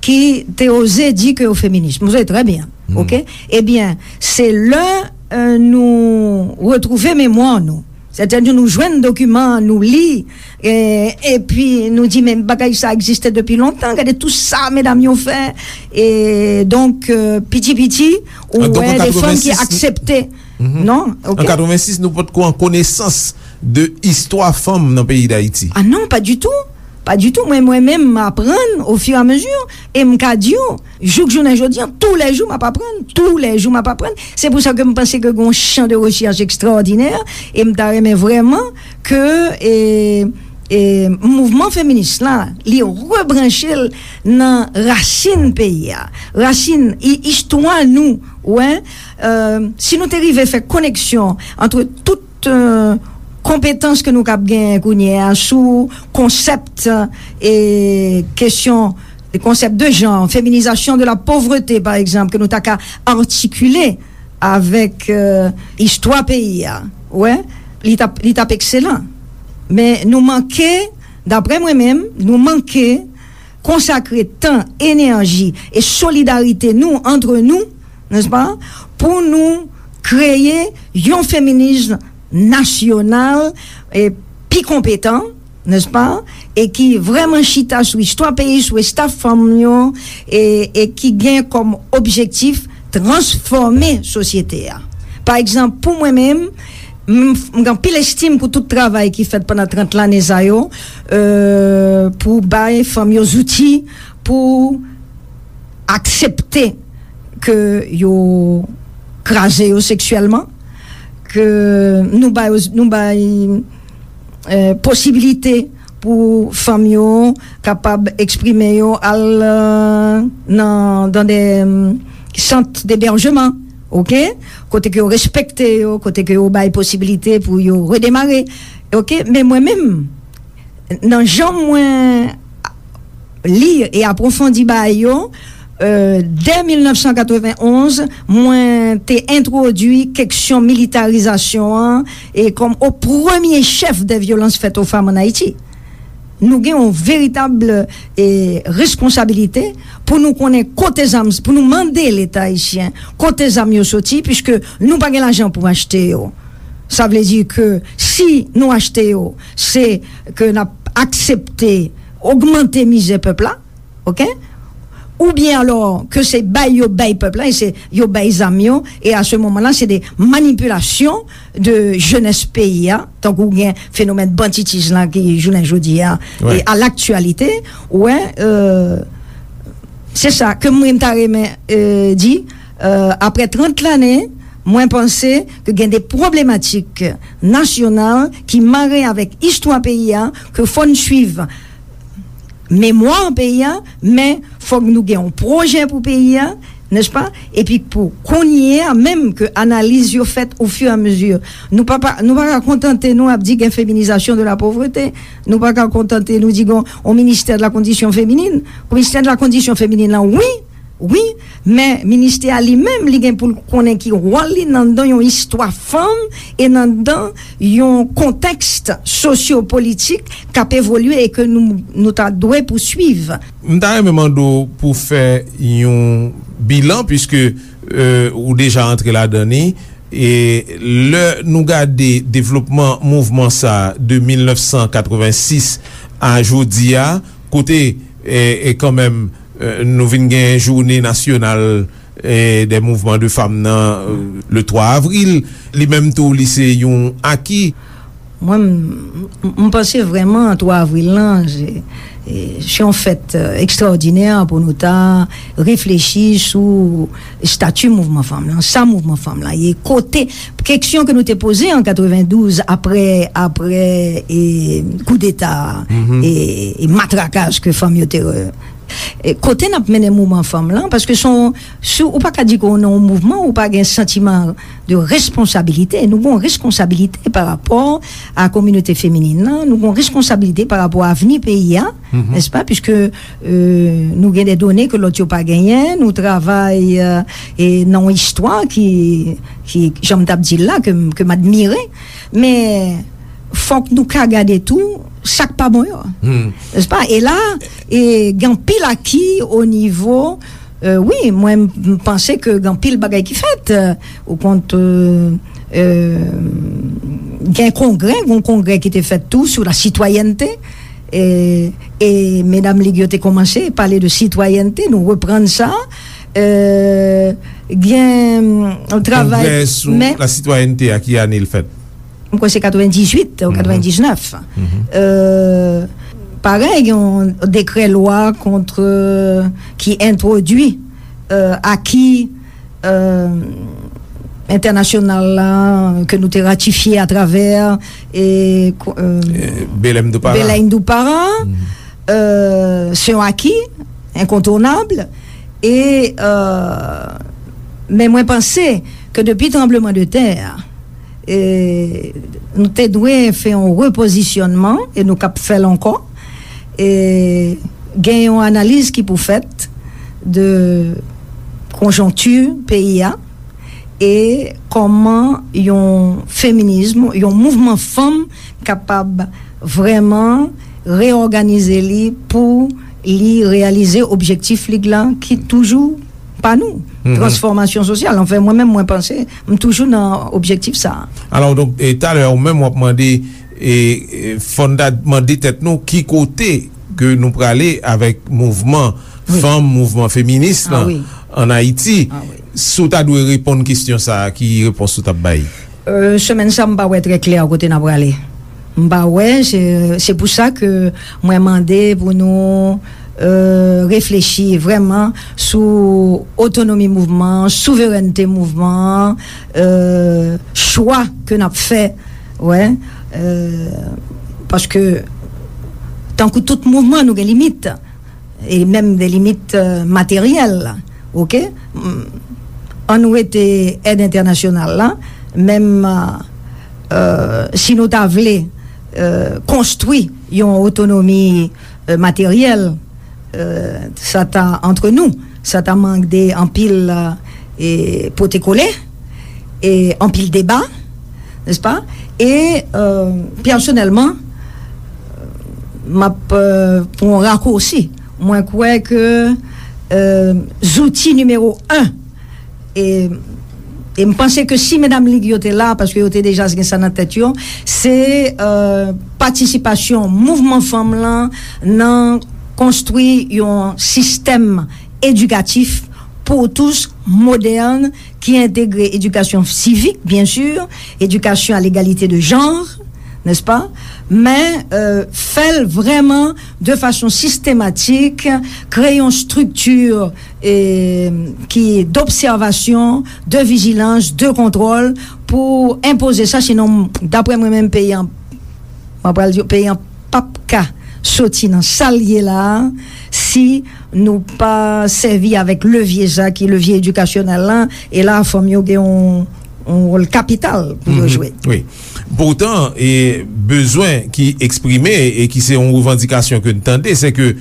ki te oze di ke yo feminis. Mwen sonje trè byen, oke? Ebyen, se lè, euh, nou retwouve memwa nou. Sètadi, nou jwenn dokiman, nou li, e, epi nou di, men bagay sa egziste depi lontan, gade tout sa medam yo fè. E donk, euh, piti piti, ou wè de fanm ki aksepte. Non, oke. An katrevensis, nou potko an konesans de istwa fanm nan peyi Dayiti. Ah non, pa ditou. Pa ditou. Mwen, mwen menm, m aprann ofiramezi. E m ka di w, jouk jounen jodi a, toulèjou m ap aprann, toulèjou m ap aprann. Se pou sa ke m panse ke gen yon chan de rechèch ekstraòdinè, e m ta renmen vrèman ke, e, e, mouvman feminis la, li rebranche l nan rasin peyi a. Rasin, i-, istwa nou, wè, euh, si nou te rive fè koneksyon ant tout, euh, konpetans ke nou kab genyen kounye a sou konsèp, e, kesyon, konsèp de jan, féminisation de la pauvreté, pa egzanp, ke nou ta ka atikile avèk, euh, istwa peyi a, wè, li t ap, li t ap ekselan. Men nou manke, daprè mwen menm, nou manke konsakre tan, enèji e solidarite nou, antre nou, nèspa, pou nou kreye yon feminism nasyonal e pi konpetan, nèspa, e ki vrèman chita sou istwa peyi, sou estaf fanm yo, e, e ki gen kòm objektif transfòme sosyete a. Pa egzanp, pou mwen menm, m, m gen anpil estim pou tout travay ki fèt pandan trant lane sa yo, euh, pou bay fanm yo zouti pou aksepte ke yo kraze yo seksyèlman, ke nou bay, nou bay, euh, posibilite pou fanm yo kapab eksprime yo, al, euh, nan, dans des, euh, centres d'hébergement, oke? Kote ke yo respekte yo, kote ke yo bay posibilite pou yo redemare, oke? Men mwen menm, nan jan mwen li e apwofondi bagay yo, euh, dè mil nèf san katrevenn onz, mwen te entwodui keksyon militarizasyon an e kòm o premye chèf dè vyolans fèt o fanm ann Ayiti. Nou gen yon veritab, e, responsabilite pou nou konnen kote zam, pou nou mande Leta ayisyen kote zam yo soti, piske nou pa gen lajan pou achte yo. Sa vle di ke si nou achte yo, se ke n ap aksepte ogmante mizè pèp la, oke? Oubyen alò ke se bay yo bay pèp la, e se yo bay zam yo, e a se moman la, se de manipilasyon de jenès peyi a, tankou gen fenomèn banditis la ki jounen jodi a, e a laktyalite, ou wè, euh, se sa ke mwen m ta renmen, euh, di, euh, aprè trant lane, mwen panse ke gen de pwoblematik nasyonal ki mare avèk istwa peyi a, ke fò n swiv memwa peyi a, men fòk nou gen yon pwojè pou peyi a, nèspa? Epi pou kounye a menm ke analiz yo fèt ofirameziman. Nou pa, pa, nou pa ka kontante nou ap di gen féminisation de la pauvreté. Nou pa ka kontante nou di gen yon ministè de la condition féminine. Ministè de la condition féminine lan, wi, wi, men ministè a li menm, li gen pou l konnen ki wòl li nan dan yon istwa fanm e nan dan yon kontèks sosyopolitik k ap evolye e ke nou, nou ta dwe pouswiv. M ta renmen mande w pou fè yon bilan, piske, euh, ou deja antre ladan li. E lè nou gade devlopman mouvman sa a de mil nèf san katrevensis a jodi a, kote, e, e kanmenm, e, nou vin gen jounen nasyonal, e, dè mouvman de fanm nan, e, le twa avril, li menm tou, li se yon aki. Mwen, m, m, m panse vrèman twa avril lan, se, e, se yon fèt, e, ekstraòdinè pou nou ta reflechi sou estati mouvman fanm lan, sa mouvman fanm lan ye, kote, keksyon ke nou te poze an katrevendouz, aprè, aprè, e, koudeta, e, e matrakaj ke fanm yo te re-, E, kote n ap mennen mouvman fanm lan, paske se yon, si w pa ka di ke w nan yon mouvman, ou pa gen santiman de responsabilite. Nou gen yon responsabilite pa rapò a kominote feminin nan, nou gen yon responsabilite pa rapò a avni peyi a, nèspa? Piske, e, nou gen de done ke lòt yo pa genyen, nou travay, e, e nan yon istwa ki, ki, jan m t ap di l la, ke, ke m admire, men fòk nou ka gade tou sa k pa bon yo. Nèspa? E la, e, gen anpil aki o nivo, e, wi, mwen, m, m panse ke gen anpil bagay ki fèt, e, ou kont, e, e, gen kongrè, gen kongrè ki te fèt tou sou la sitwayènte, e, e medam lig yo te kòmanse pale de sitwayènte, nou reprann sa, e, gen travay, kongrè sou men la sitwayènte a, ki ane l fèt? M kwè se katrevendizuit ou katrevendiznèf. E, parèy, gen yon dekrè lwa kont, ki entwodui, e, aki, e, entènasyonal la, ke nou te ratifye atravè, e, ko- e, E, Belém do Pará. Belém do Pará. E, se yon aki enkontounab. E, e, men mwen panse ke depi tranbleman de tè a, e, nou te dwe fè yon repozisyònman, e nou k ap fè l ankò. E, gen yon analiz ki pou fèt de konjonkti peyi a, e kòman yon feminism, yon mouvman fanm kapab vrèman reyòganize li pou li reyalize objektif lig la ki toujou pa nou, transfòmasyon sosyal. Anfen, mwen menm, mwen panse, m toujou nan objektif sa a. Alò, donk, e, talè, ou menm w ap mande, e, e, fò n ta mande tèt nou ki kote ke nou prale avèk mouvman fanm, mouvman feminis lan ann Ayiti. Si w ta dwe reponn kesyon sa a, ki repons ou t ap bay? E, semèn sa, m pa wè trè klè kote n ap prale. M pa wè, se, se pou sa ke mwen mande pou nou, e, reflechi vrèman sou otonomi mouvman, souverènte mouvman, e, chwa ke n ap fè, wè, e, paske tankou tout mouvman, nou gen limit, e menm de limit, e, materyèl, oke? M, ann wete èd entènasyonal la, menm, e, si nou ta vle, e, konstwi yon otonomi, e, materyèl, e, sa ta antre nou, sa ta mande anpil, e, pote kole, e anpil deba, nèspa? E, e, pèsonèlman, m ap, e, pran yon rakousi. Mwen kwè ke, e, zouti nimewo en, e, e m panse ke si medam lig yo te la, paske yo te deja gen sa nan tèt yo, se, e, patisipasyon mouvman fanm lan nan konstwi yon sistèm edikatif pour tous, modèn, ki entegre edikasyon sivik, byen si, edikasyon a legalite de janr, nèspa? Men, e, fè l vrèman de fason sistematik, kreye yon estrikti, e, ki d'obsèvasyon, de vijilans, de kontwòl pou enpoze sa, sinon, daprè mwen menm, peyi an, mwen pral di, peyi an p ap ka soti nan sa l ye la a, si nou pa sèvi avèk levye sa ki levye edikasyonèl lan, e la fanm yo gen yon, yon wòl kapital pou yo jwe. Wi. Poutan, e, bezwen ki eksprime e ki se yon revandikasyon ke n tande, se ke,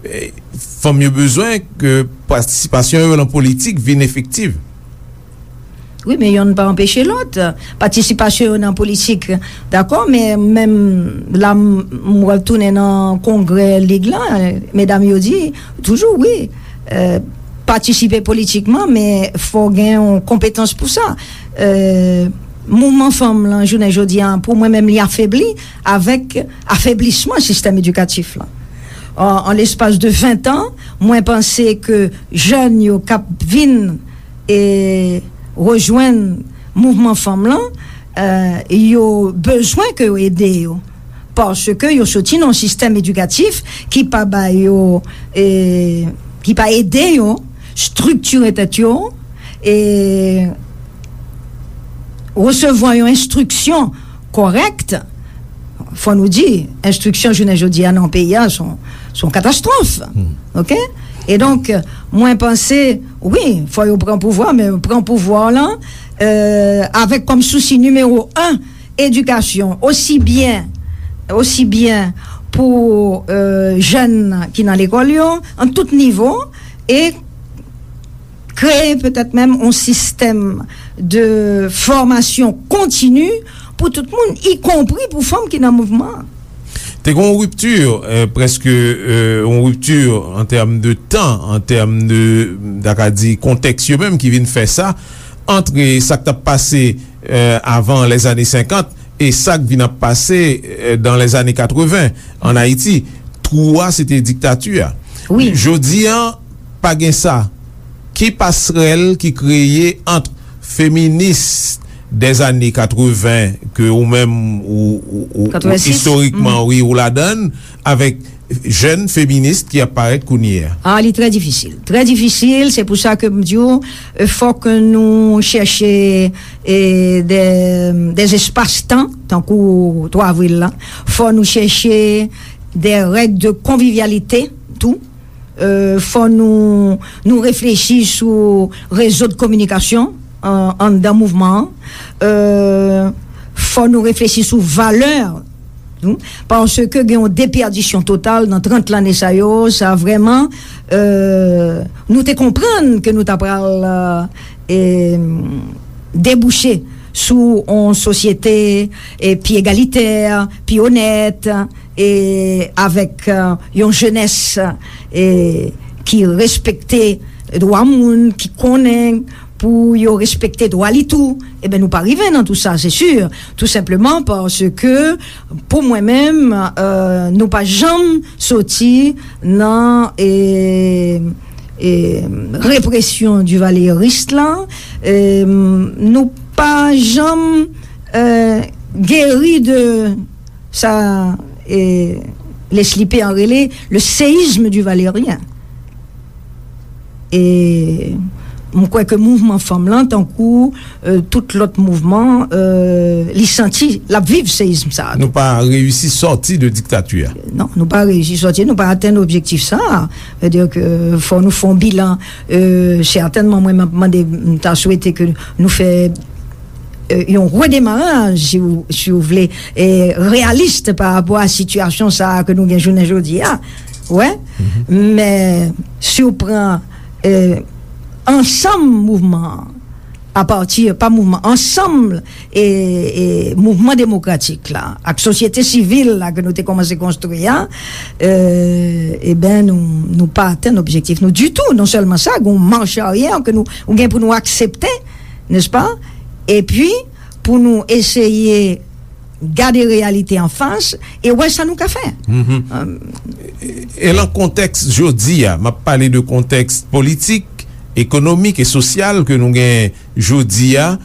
e, fanm yo bezwen ke patisipasyon yo nan politik vin efektiv. Wi, men yonn pa anpeche lòt. Patisipasyon yo nan politik, dakò, men menm la, m, m wè tounen nan kongrè lig la, medam yo di, toujou, wi, e, patisipe politikman, men fò gen yon konpetans pou sa. E, mouvman fanm lan, jounen jodi a, pou mwen menm, li afebli avèk afeblisman sistèm edikatif lan. An, an lespas de ven tan, mwen panse ke jèn yo k ap vin e rejwenn mouvman fanm lan, e, yo bezwen ke yo ede yo. Paske yo soti nan yon sistèm edikatif ki pa ba yo, e, ki pa ede yo estrikire tèt yo, e resevwa yon enstriksyon kòrèk, fò nou di, enstriksyon jounen jodi a nan peyi a, se yon, se yon katastwòf. Oke? E donk, mwen panse, wi, fò yo pran pouvwa, men pran pouvwa w lan, euh, avèk kòm sousi nimewo en, edikasyon, osi byen, osi byen pou, euh, jèn ki nan lekòl yo, an tout nivo, e kreye petèt menm yon sistèm de fòmasyon kontini pou tout moun, ikonpri pou fanm ki nan mouvman an. Te gen yon ripti, euh, prèske, euh, yon ripti an tèm de tan, an tèm de, ta ka di, kontèks yo menm ki vin fè sa, ant sa k t ap pase, euh, avan lèzane senkant e sa k vin ap pase, euh, dans les années quatre-vingts an Ayiti. Twou a, se te diktati a. Wi. Jodi a, pa gen sa. Ki pasrèl ki kreye ant feminis dèzane katreven ke ou menm ou, ou, ou, ou istorikman, wi, ou ladann, avèk jèn feminis ki ap parèt kounye a? Ah, li trè difisil. Trè difisil, se pou sa ke m di w, euh, fòk nou chèche, euh, des, des espaces-temps, tankou twa avril la. Fò nou chèche des règles de convivialité, tou. Euh, fò nou, nou reflechi sou rezo de kominikasyon, euh, anndan mouvman an. Euh, fò nou reflechi sou valè, tou. Paske gen yon depèdisyon total nan trant lane sa yo, sa vrèman, euh, nou te konprann ke nou ta pral, euh, e, debouche sou yon sosyete, e, pi egalitè, pi onèt, e avèk, euh, yon jenès, e, ki respekte dwa moun, ki konnen pou yo respekte dwa li tou. Eben, nou pa rive nan tou sa, se si. Tou senpleman paske, pou mwen menm, euh, nou pa janm soti nan, e, e, represyon divalyeris la. E, nou pa janm, euh, geri de sa, e, Leslie P. an rele le séisme duvalierien. E m kwè ke mouvman fanm lan, tankou, euh, tout lòt mouvman, euh, li santi l ap viv seyizm sa a. Nou pa reyisi sòti de diktati a. Non, nou pa reyisi sòti, nou pa atenn objektif sa a. Sètadi ke fò nou fè yon bilan. Euh, sètènman, mwen, m ap mande, m ta swete ke nou fè, euh, yon redemaraj, si w, si w vle, e reyalis pa rapò a sitiyasyon sa a ke nou gen jounen jodi a. Wè. Men, si w pran, euh, ansanm mouvman an, apati, pa mouvman, ansanm, e, e mouvman demokratik la, ak sosyete sivil la ke nou te kòmanse konstwi a, euh, eben, nou, nou pa atenn objektif nou ditou. Non sèlman sa, gen yon mach aryè ke nou, ou gen pou nou aksepte, nèspa? Epi, pou nou eseye gade reyalite anfas e wè sa nou ka fè. E, e lan kontèks jodi a, m ap pale de kontèks politik, ekonomik e sosyal ke nou gen jodi a,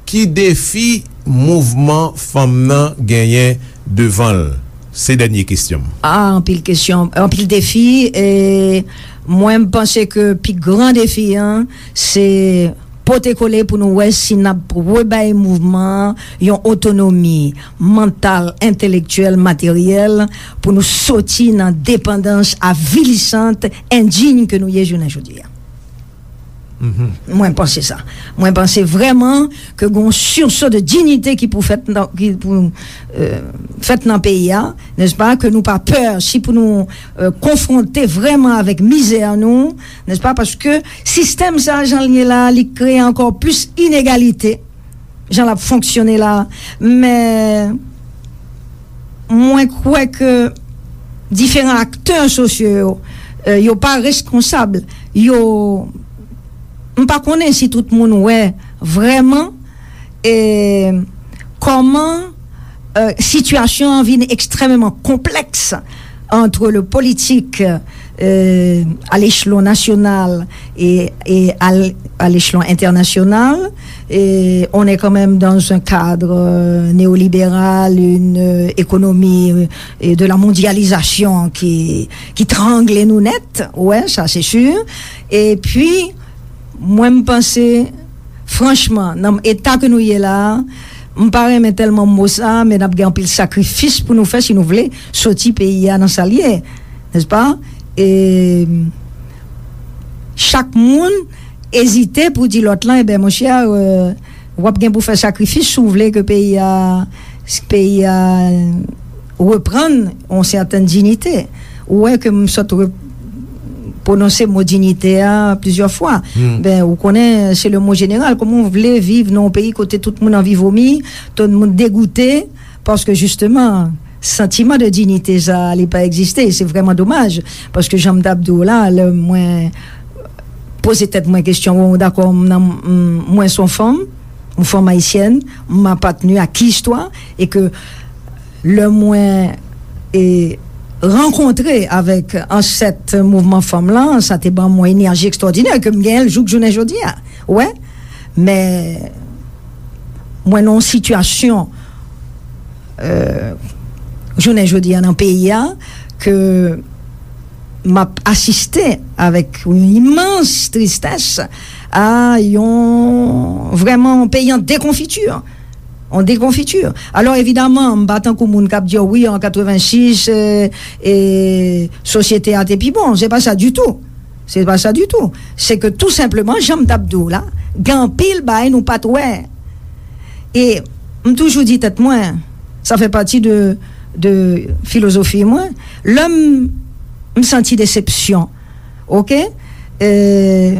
ki defi mouvman fanm nan genyen devan l? Se dènye kesyon m. Ah, anpil kesyon, anpil defi. E mwen, m panse ke pi gran defi an, se pote kole pou nou wè si n ap rebay mouvman an yon otonomi mantal, entelektyèl, materyèl, pou nou soti nan depandans avilisant, endiny ke nou ye jounen jodi a. Mwen panse sa. Mwen panse vrèman ke gon sursaut de dignité ki pou fèt nan, ki pou, euh, fèt nan peyi a, nèspa, ke nou pa pè si pou nou, euh, konfwonte vrèman avèk mizè nou, nèspa, paske sistèm sa, jan l ye la, li kreye ankò plis inegalite, jan l ap fonksyone la. Men, mwen kwè ke diferan aktè sosyo yo, euh, yo pa reskonsab. Yo, m pa konnen si tout moun wè vrèman, e, kòman, euh, sitiyasyon an vin ekstrèmeman konplèks entre le politique, euh, à l'échelon national et, et à l-, à l'échelon international. Et on est quand même dans un cadre, euh, néolibéral, une, euh, économie, euh, et de la mondialisation qui, qui trangle nous net. Ouais, ça c'est sûr. Et puis, mwen, m panse, franchman, nan eta ke nou ye la, m pa renmen tèlman mo sa, men n ap gen anpil sakrifis pou nou fè si nou vle soti peyi a nan sa l ye, nèspa? E chak moun ezite pou di lòt lan, ebyen, monchè, euh, w ap gen pou fè sakrifis si w vle ke peyi a, peyi a reprann yon sètèn diyite. Ou wè ke m sot re-, pwononse mo diyite a plizyè fwa. Ben, ou konnen, se le mo jeneral. Kòman w vle viv nan yon peyi kote tout moun anvi vomi, tout moun degoute, paske jisteman, santiman de diyite sa, li pa egziste. Se vrèman domaj, paske jan m t ap di w la, lè mwen poze tèt mwen kesyon, bon, dakò, m nan, m, mwen se yon fanm, yon fanm ayisyèn, m apatni a ki istwa, e ke lè mwen, e, rankontre avèk ansèt mouvman fanm lan, sa te ban mwen enèji ekstwòdinè ke m genyen l jouk jounen jodi a. Ou wè? Men, mwen nan yon sitiyasyon, euh, jounen jodi a nan peyi a, ke m ap asiste avèk yon imans tristès a yon, vrèman, yon peyi an dekonfiti. An dekonfiti. Alò, evidaman, m pa tankou moun k ap di, "Wi, an katrevensis, e, e, sosyete a te pi bon." Se pa sa ditou. Se pa sa ditou. Se ke tou senpleman, jan m t ap di w la, gen anpil bagay nou pa t wè. E m toujou di tèt mwen, sa fè pati de, de filozofi mwen, lè m, m santi desepsyon, oke? E,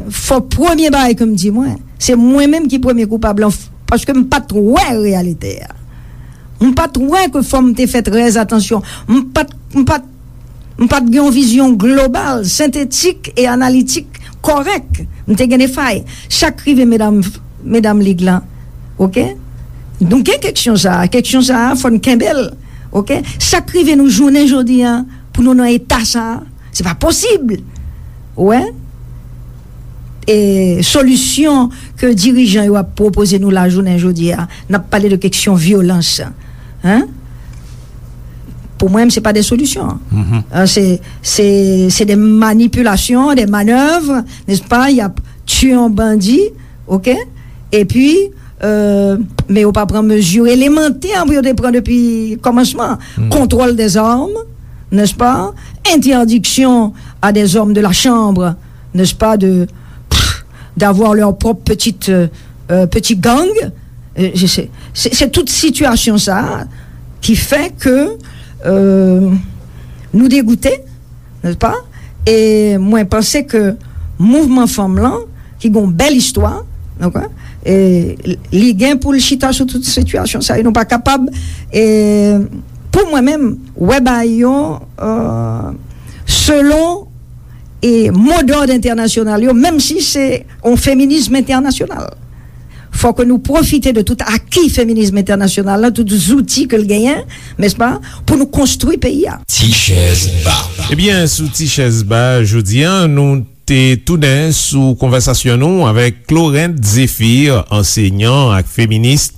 fò premye bagay ke m di mwen, se mwen menm ki premye koupab lan, paske m pa t wè reyalite a. M pa t wè ke fò m te fè trè atansyon. M pa t, m pa t, m pa t gen yon vizyon global, sentetik e analitik kòrèk. M te gen de fay. Sa k rive medam, medam lig lan, oke? Nou gen keksyon sa a. Keksyon sa a, fò n kenbe l, oke? Sa k rive nou jounen jodi a, pou nou nan eta sa a, se pa posib. Ou wè? E solisyon ke dirijan yo ap pwopoze nou la jounen jodi a, n ap pale de keksyon vyolans. Hein? Pou mwen, se pa de solisyon. Hein, se, se, se de manipilasyon, de manèv, nèspa? Y ap tiye yon bandi, oke? Epi, euh, men yo pa pran mezi elemantè pou yo te pran depi kòmansman. Kontwòl dèzòm, nèspa? Entèdiksyon a dèzòm de la chanbre, n'est-ce pas, de, pff, d'avoir leur propre petite, euh, euh, petit gang. Euh, je sais. Se, se tout sitiyasyon sa a ki fè ke, euh, nou degoute, n'est-ce pas? E mwen panse ke mouvman fanm lan, ki gon bèl istwa, oke, e li gen pou l chita sou tout sitiyasyon sa yo. Nou pa kapab, e pou mwen menm, wè bagay yo, euh, selon e modòd entènasyonal yo, menm si se yon feminism entènasyonal. Fò ke nou pwofite de tout aki feminism entènasyonal la, tout zouti ke l genyen, nèspa, pou nou konstwi peyi a. Ti chèz ba. Ebyen, sou Ti chèz ba, jodi a, nou te tounen sou konvèsasyon nou avèk Clorent Zéphir, ansenyan ak feminis,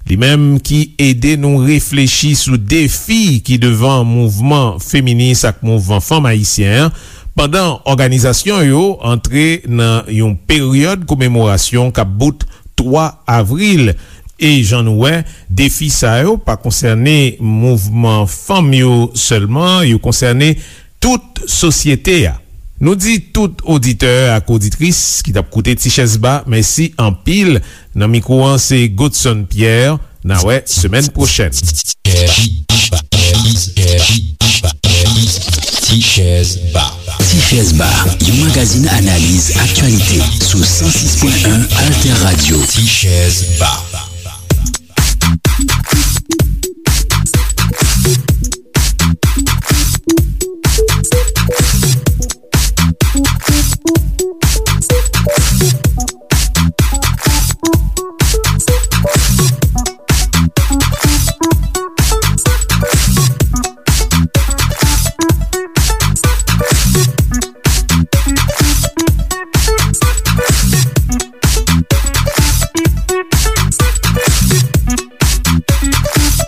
li menm ki ede nou reflechi sou defi ki devan mouvman feminis ak mouvman fanm ayisyen an, pandan òganizasyon yo antre nan yon peryòd komemorasyon k ap bout twa avril. E jan nou wè, defi sa yo pa konsène mouvman fanm yo sèlman, yo konsène tout sosyete a. Nou di tout oditè ak oditris ki t ap koute Ti Chèz Ba, mèsi anpil. Nan mikwo an, se Godson Pierre. N a wè semèn pwochèn. Ti Chèz Ba. Ti Chèz Ba, yon magazin analiz aktyalite sou san sis pwen en Alter Radio. Ti Chèz Ba.